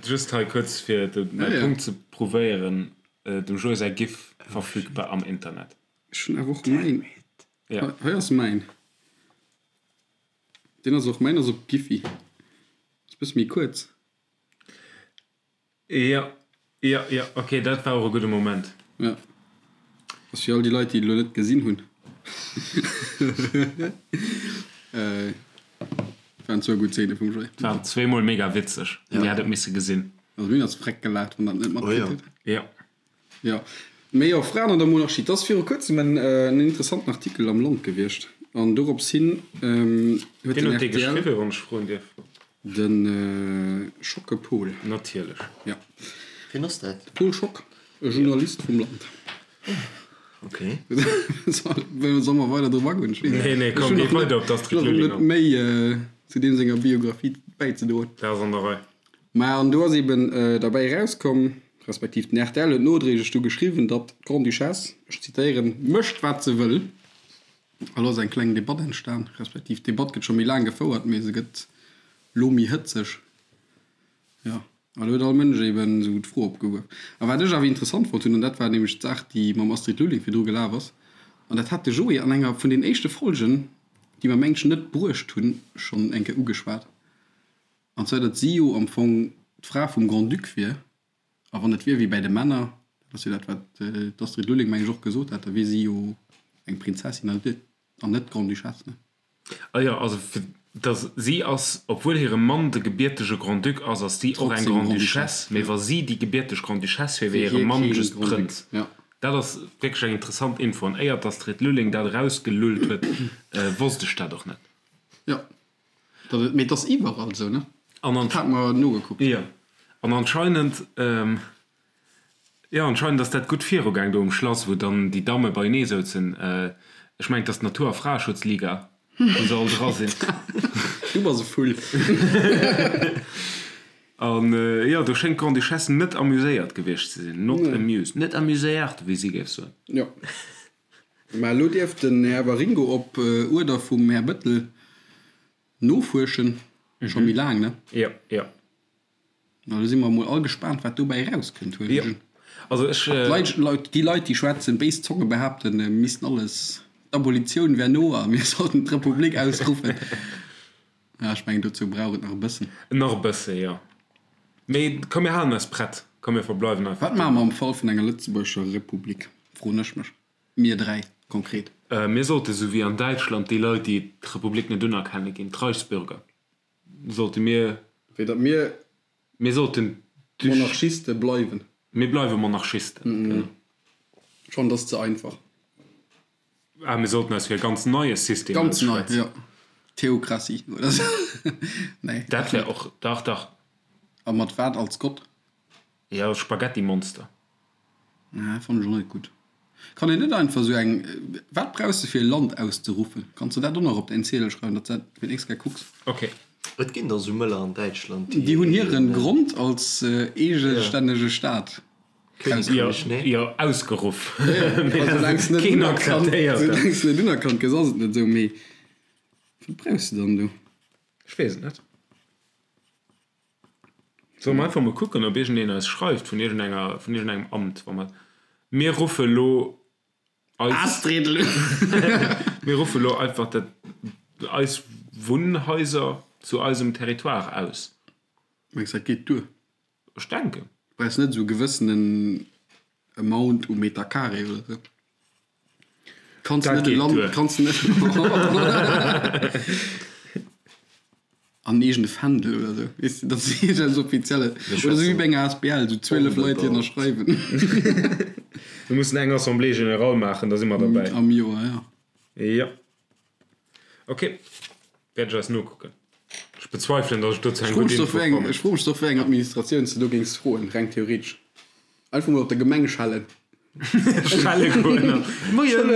A: Just hei kuerz, fir de mäi Punkt ze prouvéieren, Dem Joé säi Gif verfügbar am Internet.
C: Ech hunn awer och mäin.
A: Ja.
C: Hei ass mäin. Deen ass och, mäin ass op Giphy. Ass bësse méi kuerz.
A: Jo, jo, jo, ok, dat war och e gudde Moment.
C: Jo, ass fir all déi Leit, déi et elo net gesinn hunn. Waren zwou gutt Zeene vum Joé.
A: Waren zweemol mega witzeg, Dir hätt et misse gesinn.
C: Also mir hunn eis freck gelaacht, wann der et net matkritt hutt.
A: Jo.
C: Jo, mee jo, Fraen an der Monarchie, et ass viru kuerzem en interessanten Artikel am Land gewiescht an dorops hin huet
A: Wien
C: den
A: huet dee
C: rtl.
A: geschriwwen, wann ech froen dierf?
C: De Schocke Paul.
A: Natierlech.
C: Ja.
B: Wien ass dat?
C: De Paul Schock, e Journalist vum Land.
B: Ok.
C: Solle mer weider drop agoen? Ech weess net.
A: Nee, nee, komm, géi weider op d'Astrid Lulling
C: an. Ech hunn nach net méi zu deem senger Biographie bäizedroen.
A: Dat ass an der Rei.
C: Mä an do ass eben derbäi erauskomm, respektiv den rtl huet nodréiglech du geschriwwen, datt d'Grande-Duchesse, ech zitéieren, mécht wat se wëll. A lo ass eng kleng Debatt entstan, respektiv d'Debatt gëtt scho méi laang gefouert, mee se gëtt lo méi hëtzeg. Jo, a lo huet all Mënsch eben esou d'Fro opgeworf. A wat ech awer interessant fonnt hunn, an dat war nämlech d'Saach, déi mam Astrid Lulling virdru gelaf ass, an dat hat de Joé an enger vun den éischte Folgen, déi mer mengen ech net bruecht hunn, schonn eng Kéier ugeschwat, an zwar datt si jo am Fong d'Fra vum Grand-Duc wier, A wann et wier wéi bäi de Männer, dat ass jo dat, wat d'Astrid Lulling, meng ech, och gesot hat, da wier si jo eng Prinzessin an net d'Grande-Duchesse, ne?
A: Ah jo, also fir dass si ass, obwuel hire Mann de gebiertege Grand-Duc ass, ass si och eng Grande-Duchesse, mee wa si déi gebierteg Grande-Duchesse wier, wier hire Mann just Prënz. Dat ass wierklech eng interessant Info, an éier d'Astrid Lulling dat erausgelullt huet, wosst ech dat och net.
C: Jo, Dat et, mee et ass iwwerall esou, ne?
A: An
C: Dat hat mer nogekuckt.
A: Jo, an anscheinend, jo, anscheinend ass dat gutt virugaang do um Schlass, wou dann déi Damme beienee souzen. Ech mengen, et ass d'Natur a Fraeschutzliga, wou se all dra sinn.
C: Du bass e Vull.
A: An jo, do schéngt d'Grande-Duchesse net amuséiert gewiescht ze sinn. Not amused. Net amuséiert, wéi si géif soen.
C: Jo. Mä elo dierf den Här Waringo op Uerder vum Här Bettel nofuerschen. Scho méi laang, ne?
A: Jo, jo.
C: Na, do si mer emol all gespaant, wat dobäi erauskënnt, huelen ech un.
A: Also ech.
C: D'Leit, Leit, déi Leit, déi schwätzen, béis Zonge behaapten, mir missten alles, d'Abolitioun wär no a mir sollten d'Republik ausruffen. Ja, ech mengen, dozou brauch et nach e bëssen.
A: Nach e bësse, jo. Mee komm, mir halen eis prett. Komm, mir verbleiwen einfach
C: Wat maache mer am Fall vun enger lëtzebuergescher Republik, froen ech mech. Mir 3 konkret.
A: Mir sollte sou wéi an Däitschland déi Leit, déi d'Republik net unerkenne ginn, d'Reichsbürger, sollte mir.
C: Wéi datt mir.
A: Mir sollten.
C: Monarchiste bleiwen.
A: Mir bleiwe Monarchisten, genau.
C: Schonn, dat ass ze einfach.
A: Ah, mir sollten eis fir e ganz neie System
C: Ganz nei,
A: ausschwätzen.
C: jo. Theokratie oder sou. Nee.
A: Dat wär och, dach, dach.
C: A mat wat als Gott?
A: Jo, Spaghettimonster.
C: Nee, fannen ech och net gutt. Kann een net einfach sou eng, wat brauchs de fir e Land auszeruffen? Kanns de dat och nach op däin Ziedel schreiwen, datt s dat fir d'nächst Kéier kucks?
A: Ok.
B: Et ginn der sou mëller an Däitschland,
C: déi. Déi hunn hiren Grond als eegestännege Staat
A: ausgeruff. Jo, ausgeruff.
C: Keen akzeptéiert dat. Soulaangs de net unerkannt gëss, ass et net esou. Mee wat brauchs de dann do?
A: Ech weess et net. Solle mer einfach mol kucken, ob iergendeen eis schreift vun iergendenger, vun iergendengem Amt, wa mer, mir ruffe lo eis,
C: Astrid!
A: mir ruffe lo einfach dat, eis Wunnhaiser zu eisem Territoire aus.
C: Mengs dat geet duer?
A: Ech denken.
C: Du brauchs net esou e gewëssenen Amount u Meter Carré oder esou. Kanns
A: Dat
C: net e
A: geet
C: Land,
A: duer.
C: kanns net an eegene Fändel oder esou, weess de, dass iergendeppes Offizielles oder esou wéi bei enger asbl, esou 12 Leit, déi ënnerschreiwen.
A: Mir mussen eng Assemblée générale maachen, da si mer derbäi.
C: Am Joer, jo.
A: Jo. Ok, wäert ech eis nokucken. Ech bezweifelen, datt ech dozou eng gutt Info fannen.
C: Ech froe mech doch, wéi eng Administratioun s de do géings froen, reng theoretesch. Einfach mol op der Gemeng schellen.
A: Schelle goen. Moien,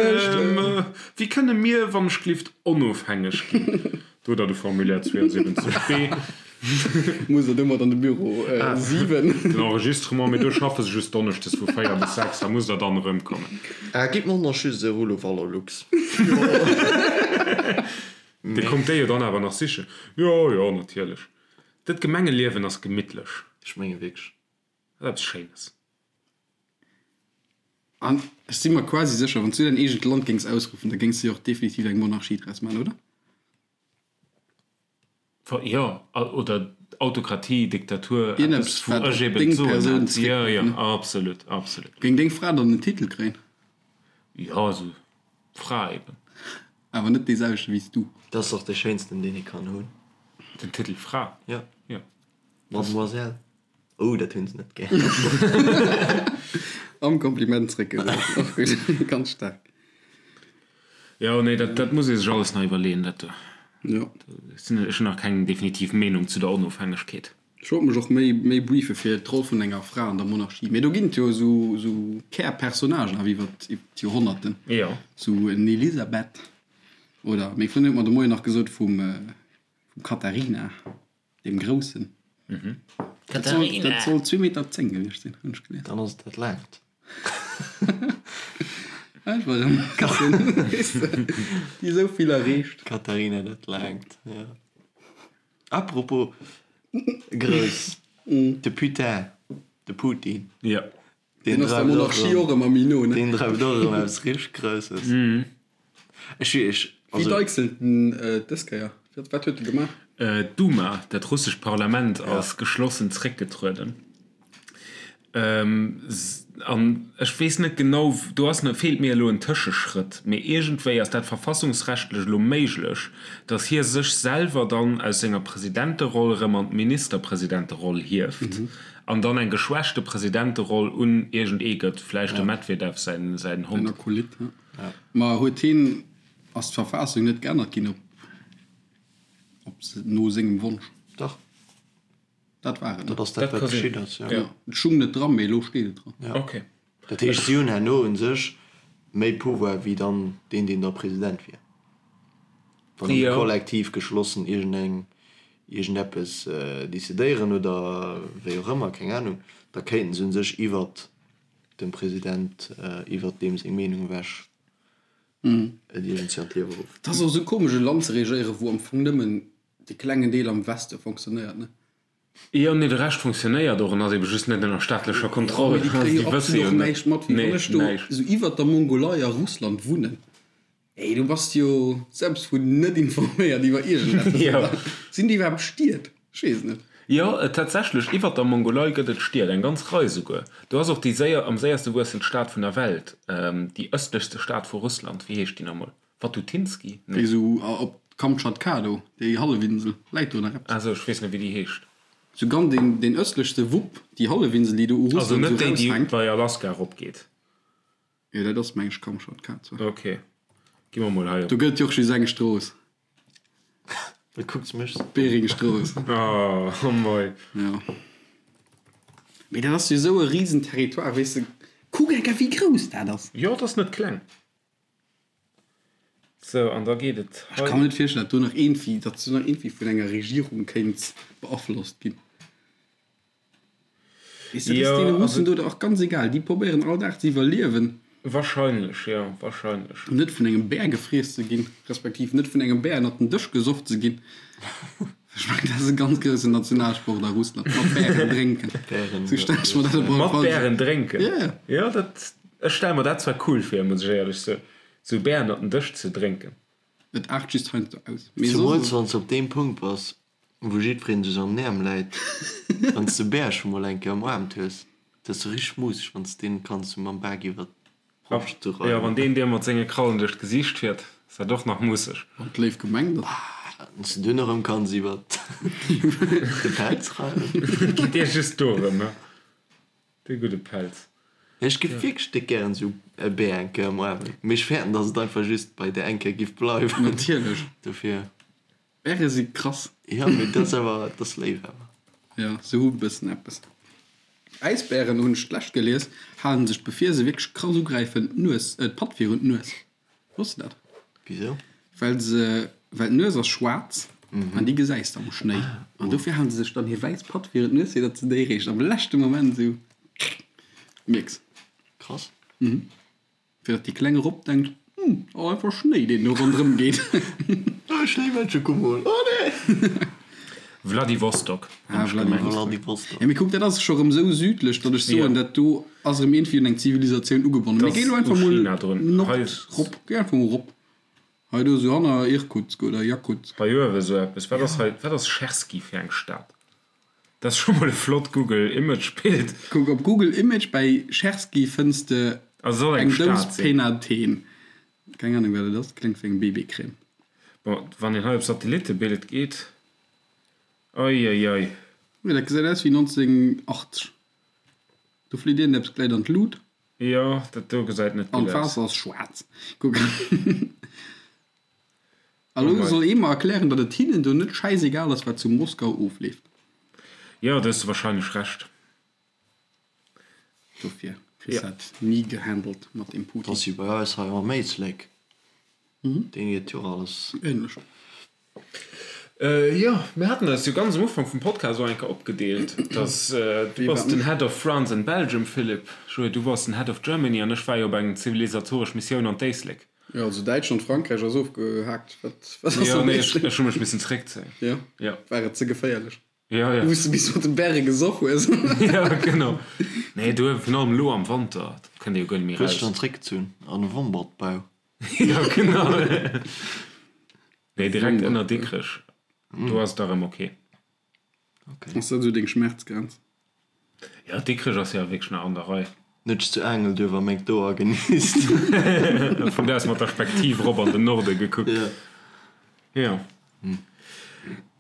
A: wéi kënne mir, wann ech glift, onofhängeg ginn? Do hutt der de Formulaire 72 B.
C: Muss der domat an de Büro 7.
A: Den Enregistrement, mee do schaffe se just donneschdes vu 4 bis 6, da musst der dann erëmkommen.
B: Ah, gitt mer nach just e Rullo Valorlux.
A: Dir kommt déi jo dann awer nach sichen. Jo, jo, natierlech. Dat Gemengeliewen ass gemittlech.
B: Ech menge wierklech.
A: Dat ass eppes Schéines.
C: An ech si mer quasi sécher, wann s du däin eegent Land géings ausruffen, da géings de jo och definitiv eng Monarchie draus maachen, oder?
A: Jo, oder Autokratie, Diktatur,
C: eppes
A: wou
C: wat
A: ech
C: op
A: eben
C: deng
A: d'Soen
C: Persoun
A: hätt. Jo,
C: zréckgëtt,
A: jo,
C: ne?
A: absolut, absolut.
C: Géing deng Fra dann en Titel kréien?
A: Jo, esou Fra eben.
C: Awer net dee selwechte wéi s du.
B: Dat ass dach dee schéinsten, deen ee kann hunn.
A: Den Titel Fra?
B: Jo.
A: Jo.
B: Mademoiselle. Oh, dat hunn se net gär.
C: Am Kompliment zréckgesat, och gutt, ganz staark.
A: Jo, nee, dat, dat muss ee sech alles nach iwwerleeën, dat do.
C: Jo.
A: Ech hunn nach keng definitiv Meenung zu der Onofhängegkeet.
C: Ech wollt mech och méi, méi briefe fir d'Roll vun enger Fra an der Monarchie. Mee do ginn et jo esou, esou Kärpersonnagen awer iwwer d'Joerhonnerten.
A: Jo.
C: Esou en Elisabeth oder, meng Frëndin huet mer de Moien nach gesot, vum, vum Katharina. Deem Groussen.
A: Katharina!
C: Dat soll zwee Meter 10 gewiescht sinn, hunn ech gelies.
B: Dann ass et dat laangt.
C: Ech war erëm e bëssen, weess de, déi esou vill erreecht.
B: Katharina dat laangt, jo. Apropos grouss, de Putin, de Putin.
A: Jo.
C: Deen ass der Monarchie och ëmmer méi no, ne?
B: Deen dreift och erëm eppes richteg Grousses. Ech, ech,
C: Wéi
B: also.
C: deichselt en dës Kéier? Wat huet e gemaach?
A: D'Duma, dat russescht Parlament, ass geschlossen zréckgetrueden. An ech weess net genau, do ass, feelt mir elo en Tëscheschrëtt, mee iergendwéi ass dat verfassungsrechtlech elo méiglech, datt hie sech selwer dann aus senger Presidenteroll erëm an d'Ministerpresidenteroll hieft an dann eng geschwächte Presidenteroll un iergend ee gëtt, vläicht dem Medvedev säin
C: Säin
A: Hond.
C: Akolyt, ja. Ma huet hien, ass d'Verfassung net geännert ginn op, op no sengem Wonsch?
B: Dach.
C: Dat war et, ne?
B: Dat ass dat,
A: Dat
B: wat
A: ka sinn.
B: geschitt ass, jo.
A: Ja.
C: Et stung net dran, mee elo steet et dran.
B: Ja.
A: Okay.
B: Dat heescht, si hunn herno u sech méi Pouvoir wéi dann deen, deen da President wier. Wann déi
A: Jo.
B: kollektiv geschlossen iergendeng, iergendeppes decidéieren oder wéi och ëmmer, keng Anung, da kéinten se u sech iwwert dem President, iwwert deem seng Meenung ewech et iergendwéi an d'Liewe ruffen.
C: Et ass och esou komesch e Land ze regéieren, wou am Fong nëmmen dee klengen Deel am Weste fonctionnéiert, ne?
A: Jo, nee, de Rescht fonctionnéiert och en ass ebe just net ënner staatlecher Kontroll.
C: Mee déi kréie
A: Déi
C: jo
A: wësse
C: absolut
A: jo
C: och
A: net.
C: näischt mat. Wéi
A: Nee,
C: wann ech do
A: näischt.
C: esou iwwert der Mongolei a Russland wunnen. Ey, du bass jo selbst vun net informéiert iwwer iergendeppes,
A: Jo.
C: oder? Sinn déi iwwerhaapt Stied? Ech weess et net.
A: Jo, tatsächlech, iwwert der Mongolei gëtt et Stied, eng ganz Rei souguer. Do ass och déi séier, am séierste wuessend Stad vun der Welt, déi ëstlechste Stad vu Russland, wéi heescht déi nach emol? Watutinski?
C: Déi
A: Nee.
C: esou op Kamtschatka do, déi Hallefinsel, läit do nach eppes?
A: Ah sou, ech weess net, wéi déi heescht.
C: Sou ganz deen, deen ëstlechste Wupp, déi Hallefinsel, déi do u
A: Also
C: Russland
A: net
C: esou
A: déi, déi
C: raushänkt.
A: bei Alaska eropgeet.
C: Jo, dat ass meng ech Kamtschatka zwar.
A: Ok, gi mer mol hei op.
C: Do gëtt jo och just eng Strooss.
B: Wat kucks mech sou?
C: Beringstrooss.
A: Oh, oh moi.
C: Jo. Mee dat ass jo esou e risen Territoire, weess de. Kuck eng Kéier wéi grouss dat ass.
A: Jo, et ass net kleng. Sou, an da geet et
C: hei. Ech ka mer net virstellen, datt do nach iergendwéi, datt do nach iergendwéi vun enger Regierung kéint beaflosst ginn. Weess de, dat ass deene Russen do och ganz egal. Déi probéieren all Dag ze iwwerliewen.
A: Wahrscheinlech, jo, wahrscheinlech.
C: Net vun engem Bär gefriess ze ginn, respektiv net vun engem Bär ënnert den Dësch gesoff ze ginn. Ech mengen, dat ass e ganz groussen Nationalsport a Russland, mat Bären drénken. Sou stell ech mer dat op alle
A: Mat
C: Fall vir.
A: Bären drénken?
C: Jo.
A: Jo, dat, ech stelle mer dat zwar cool vir, muss ech éierlech soen, sou Bär ënnert den Dësch ze drénken.
C: Et aart just heiansdo aus. Mee
B: Zemools
C: soss.
B: wann s de op deem Punkt bass, Wou jiddwereen sech an den Äerm läit. Wann s de Bär scho mol eng Kéier ëmarmt hues, dat ass sou richteg museg, wann s deen kanns sou mam Bak iwwer d'Broscht sou
A: Jo,
B: reiwen.
A: wann deen dir mat senge Krallen duerch d'Gesiicht fiert, ass dat och nach musseg.
C: Wann d'léif gemengt ass.
B: Wann s de dunn erëm kanns iwwer de Pelz reiwen.
A: Et geet dir just dorëm, he? De gudde Pelz.
B: Ech giff wierklech déck gären sou e Bär eng Kéier ëmarmen, mee ech fäerten, dass et einfach just bei där eng Kéier giff bleiwen.
C: Natierlech.
B: Dofir.
C: Bäre si krass.
B: Jo, mee dat ass awer, dat ass léif awer.
C: Jo, se hu bëssen eppes. Äisbären, hunn ech d'lescht gelies, halen sech bevir se wierklech krass ugräifen d'Nues, d'Patt virun d'Nues. Wosst de dat?
B: Wisou?
C: Well se, well d'Nues ass schwaarz an déi gesäis de am Schnéi. An dofir halen se sech dann hir wäiss Patt virun d'Nues, fir datt se déi réischt am leschte Moment esou mierks.
B: Krass.
C: Fir datt déi kleng Robb denkt, Hm, ass einfach Schnéi, deen do ronderëm geet.
B: Oh, Schnéimännche, komm mol! Oh nee!
A: Vladivostok, hunn ech gemengt.
B: Vladivostok.
C: Ja, mee kuck, dat ass scho rëm esou südlech, datt ech soen, dat do ass erëm iergendwéi un eng Zivilisatioun ugebonnen. Mee
A: Dat
C: géi elo
A: ass
C: einfach
A: u
C: mol
A: China drun.
C: nord
A: Hei
C: rop, géi einfach mol rop. Hei do esou hanner Irkutsk oder Jakutsk.
A: Hei uewe sou eppes. Wat ass hei, wat ass Cherski fir eng Stad? Dat ass scho mol e flott Google Image Bild.
C: Kuck op Google Image bäi Cherski fënns de
A: Also soll eng
C: eng Dous
A: Stad sinn.
C: Penathen. Keng Ahnung wat et ass, kléngt wéi eng BB-Crème.
A: Bon, wann een hei op Satellittebild geet, oi oi oi.
C: Jo, dat gesäit aus wéi 1980. Do flitt iergendeppes gläit an d'Lut.
A: Jo, dat do gesäit net
C: An
A: gutt aus.
C: d'Waasser ass schwaarz. Kuck. A lo soll ee mer erklären, datt et hinnen do net schäisegal ass, wat zu Moskau ofleeft.
A: Jo, do hues de wahrscheinlech Recht.
C: Dofir kriss dat ni gehandelt mat deem Putin.
B: Ass wéi bei eis hei am Éislek. Deen geet jo och alles.
C: Ähnlech.
A: Jo, mir haten eis jo ganz am Ufank vum Podcast och eng Kéier opgedeelt, dass du bass den Head of France and Belgium, Philippe, Joé, du bass den Head of Germany an ech war jo op eng zivilisatoresch Missioun an d'Éislek.
C: Jo, also Däitschland, Frankräich ass ofgehaakt. Wat wat ass
A: Jo,
C: am
A: nee, ech
C: Éislek?
A: ech hu mech missen zeréckzéien.
C: Jo,
A: Jo.
C: war et ze geféierlech?
A: Jo, jo.
C: Wou s de bis mat de Bäre gesoff hues?
A: Jo, genau. Nee, do virun allem elo am Wanter, dat kënnt ee jo guer net méi
B: Hues dech
A: raus.
B: dann zeréckgezunn an e Wombertbau?
A: Jo, genau. Nee, direkt ënner Dikrech. Do ass et da rëm ok.
C: Ass dat esou deng Schmerzgrenz?
A: Jo, Dikrech ass jo wierklech nach an der Rei.
B: Net zu Aangelduerf a McDo agenisst.
A: Vun do aus mat der Spektiv rop an den Norde gekuckt. Jo.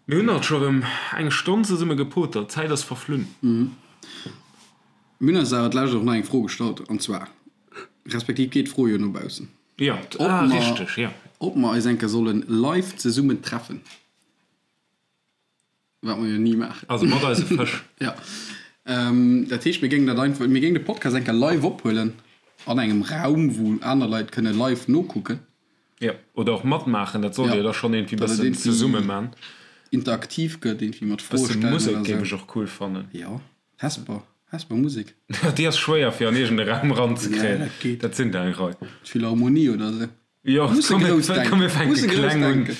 A: Mir hunn alt scho rëm eng Stonn zesumme gepotert. D'Zäit ass verflunn.
C: Mir hunn eis awer d'lescht och nach eng Fro gestallt, an zwar, respektiv geet d'Fro jo no baussen.
A: Jo, ah, richteg, jo.
C: Ob mer eis eng Kéier solle live zesummen treffen. Wat mer jo ni maachen.
A: Also mat eise Fësch.
C: Jo. Dat heescht, mir géingen dat einfach, mir géingen de Podcast eng Kéier live ophuelen an engem Raum, wou aner Leit kënne live nokucken.
A: Jo, oder och matmaachen, dat sollt Dir da schonn iergendwéi bëssen zesumme man.
C: Interaktiv gëtt, iergendwéi mat Froe
A: Bësse
C: stellen
A: Musek
C: oder
A: géif
C: sou.
A: ech och cool fannen.
C: Jo, Hesper, Hesper Musek.
A: Déi ass schwéier fir an iergend e Raum
C: Ja,
A: eranzekréien.
C: dat geet.
A: Dat sinn der eng Rei.
C: D'Philharmonie oder sou.
A: Jo,
C: Musse
A: komm,
C: grouss
A: komm, mir
C: denken.
A: fänke
C: Musse grouss
A: kleng un.
C: denken.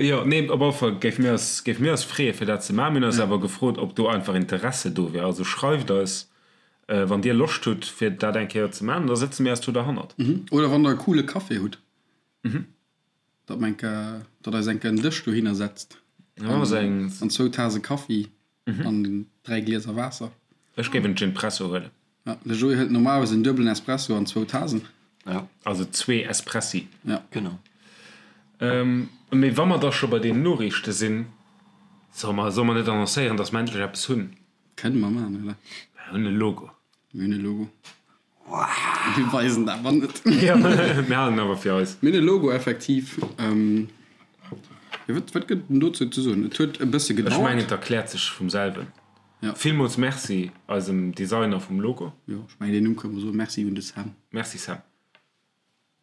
A: Jo, nee, op alle Fall géife mir eis, géife mir eis freeë fir dat ze maachen. Mir hunn eis awer gefrot, ob do einfach Interesse do wier. Also schreift eis, wann Dir Loscht hutt, fir dat eng Kéier ze maachen, da sëtze mir eis do derhannert.
C: Oder wann Der e coole Café hutt, datt mer eng Kéier, datt eis eng Kéier en Dësch dohinner setzt an zwou Tase Kaffi an 3 Glieser Waasser.
A: Ech géif en Ginpresso huelen.
C: Ja, de Joé hëlt normalerweis en duebelen Espresso an zwou Tasen.
B: Ja.
A: Also zwee Espressi.
C: Ja.
B: Genau.
A: Mee wa mer da scho bei den Noriichte sinn, solle mer, solle mer net annoncéieren, dass mer endlech eppes hunn?
C: Kënne mer maachen, oder?
A: Mer hunn e Logo.
C: Mir hunn e Logo. Mir weisen et awer net.
A: Ja, mir halen en awer fir eis.
C: Mir hunn e Logo, effektiv. Jo, wat, wat gëtt en dozou ze soen? Et huet e bësse
A: Ech
C: gedauert.
A: mengen, et erkläert sech vum selwen.
C: Ja.
A: Villmools Merci eisem Designer vum Logo.
C: Jo, ech mengen, deen Numm kënne mer soen. Merci un de Sam.
A: Merci Sam.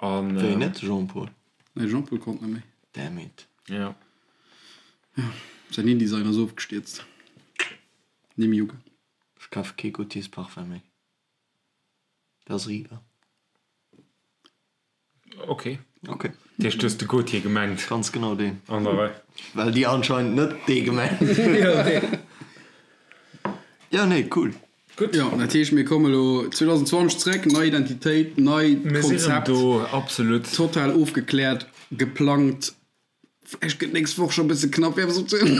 A: An,
B: Wéi net Jean-Paul?
C: Nee, Jean-Paul konnt net méi.
B: Damn it.
A: Ja.
C: Säin InDesign ass ofgestierzt. Ni méi ugaang.
B: Ech kafe kee Gaultiers Parfum méi. Dat ass eriwwer.
A: Ok.
B: Ok.
A: Dat heescht, du hues de Gaultier gemengt?
B: Ganz genau deen.
A: An der Rei.
B: Well déi anscheinend net dee gemengt hunn. Jo, nee, cool.
A: Gutt.
C: Jo, dat heescht, mir komme lo 2020 zréck, nei Identitéit, nei
A: Mir sinn erëm
C: Konzept,
A: do, absolut.
C: total ofgekläert, geplangt. Vläicht gëtt d'nächst Woch scho e bësse knapp, fir eppes opzehuelen.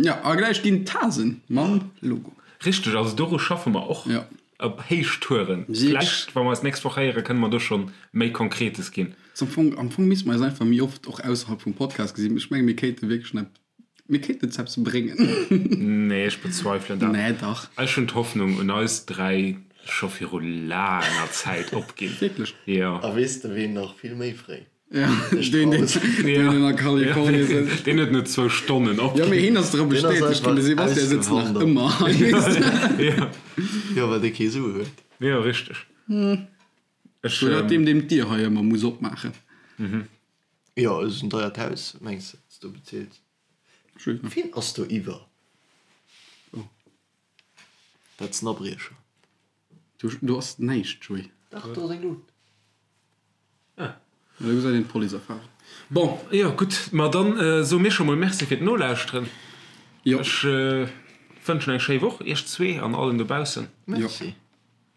C: Jo, a gläich ginn d'Tasen mam Logo.
A: Richteg, also doru schaffe mer och
C: Ja.
A: op Héichtouren. Vläicht, wa mer eis d'nächst Woch héieren, kënne mer do schonn méi Konkretes ginn.
C: Am Fong, am Fong misste mer eis einfach méi oft och ausserhalb vum Podcast gesinn. Ech menge mir kéinte wierklech nach, mir kéinten eppes bréngen.
A: Nee, ech bezweifelen dat.
C: Nee, dach.
A: Ech hunn d'Hoffnung un eis 3 scho viru laanger Zäit opginn.
C: Wierklech?
A: Jo.
B: A weess de ween nach vill méi fréi?
C: Ja, deen, deen, deen a Kalifornien sëtzt.
A: Deen huet no zwou Stonnen
C: opginn. Jo, mee hien ass dra bestätegt ginn. De Sebastian sëtzt nach ëmmer hei, weess de.
A: Jo.
B: Jo, well dee kee Sue huet.
A: Jo, richteg. Ech.
C: Oder deem, deem d'Dier hei ëmmer muss opmaachen.
B: Jo, et ass en deiert Haus, mengs de, wat s du bezilt? Wien ass do iwwer? Dat ass en Abriecher.
C: Do ass näischt, Joé.
B: Dach, do ass eng Lut.
C: Ah. Do gesäit een d'Police erfahren.
A: Bon, jo, gutt, ma dann soe mir scho mol Merci fir d'Nolauschteren.
C: Jo.
A: Ech wënschen eng schéi Woch iech zwee an allen dobaussen.
B: Merci.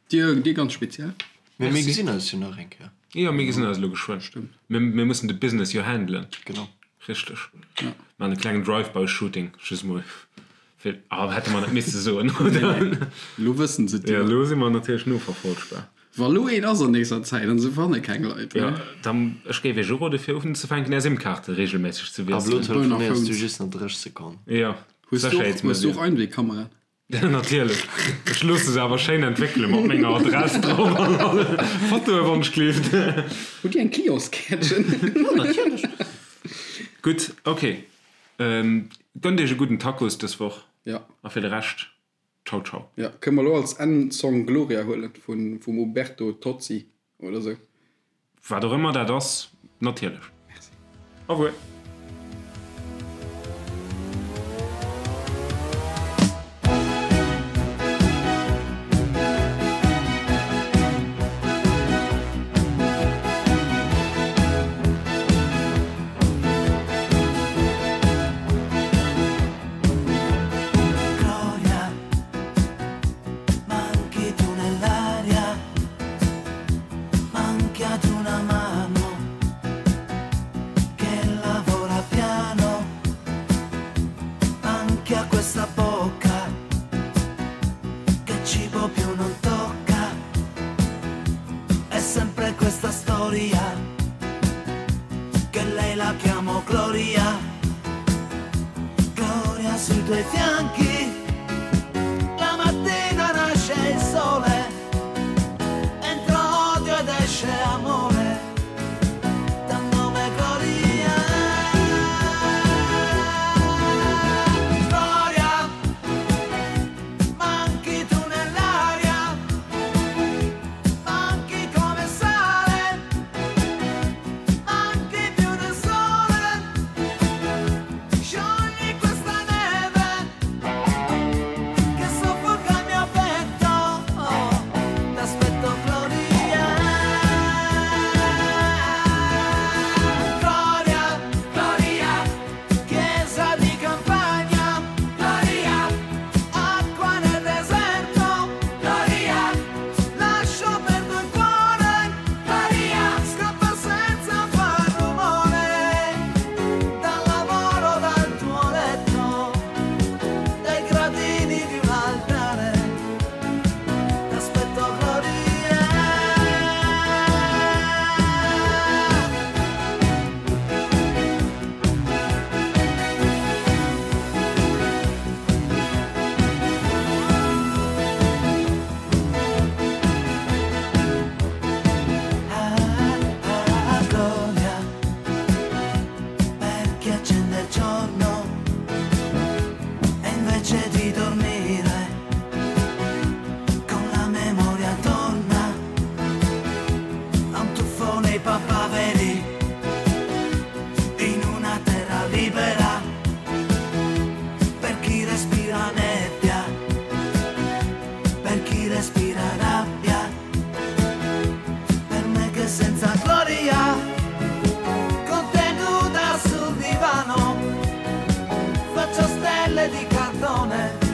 C: Dir, dir ganz speziell.
B: Mee mir gesinn eis jo nach eng Kéier.
A: Jo, mir gesinn eis elo geschwënn.
C: Stëmmt.
A: Mir, mir mussen de Business jo handelen.
B: Genau.
A: Richteg.
C: Ja.
A: Maachen e klengen Drive-by-Shooting, just mol fir, ah, hätte mer net misse soen, oder?
C: Nee, nee. Elo wëssen se et
A: Jo,
C: jo.
A: elo si mer natierlech noverfolgbar.
C: Wa lo een ass an nächster Zäit an se fanne keng Leit,
A: Jo,
C: ne?
A: dann, ech géif iech urode fir unzefänken är SIM-Kaarte regelméisseg ze
B: Ab elo
A: wiesselen.
B: telefonéiers du just nach 30 Sekonnen.
A: Jo,
C: Hues du och, hues du och Einwegkameraen?
A: Natierlech. Ech loosse se awer schéin entwéckele mat menger Adress drop an alle Fotoe wann ech gleeft.
C: Hutt Dir eng Clientskäertchen?
A: Jo, natierlech. Gutt, ok. Gönnt iech e gudden Tacos dës Woch.
C: Ja.
A: A fir de Rescht, ciao ciao.
C: Ja, kënne mer elo als Endsong Gloria huelen vun vum Uberto Tozzi oder sou?
A: Wat och ëmmer dat ass, natierlech.
C: Merci.
A: Au revoir.
D: Gloria, manchi tu nell'aria, manchi ad una mano che lavora piano, anche a questa bocca che cibo più non tocca. È sempre questa storia che lei la chiamo Gloria. Gloria sui tuoi fianchi, la mattina nasce il sole, entra odio ed esce amore, dal nome Gloria. Gloria, manchi tu nell'aria, manchi come sale, manchi più del sole. Sciogli questa neve. libera per chi respira nebbia, per chi respira rabbia, per me che senza gloria, con te nuda sul divano, faccio stelle di cartone.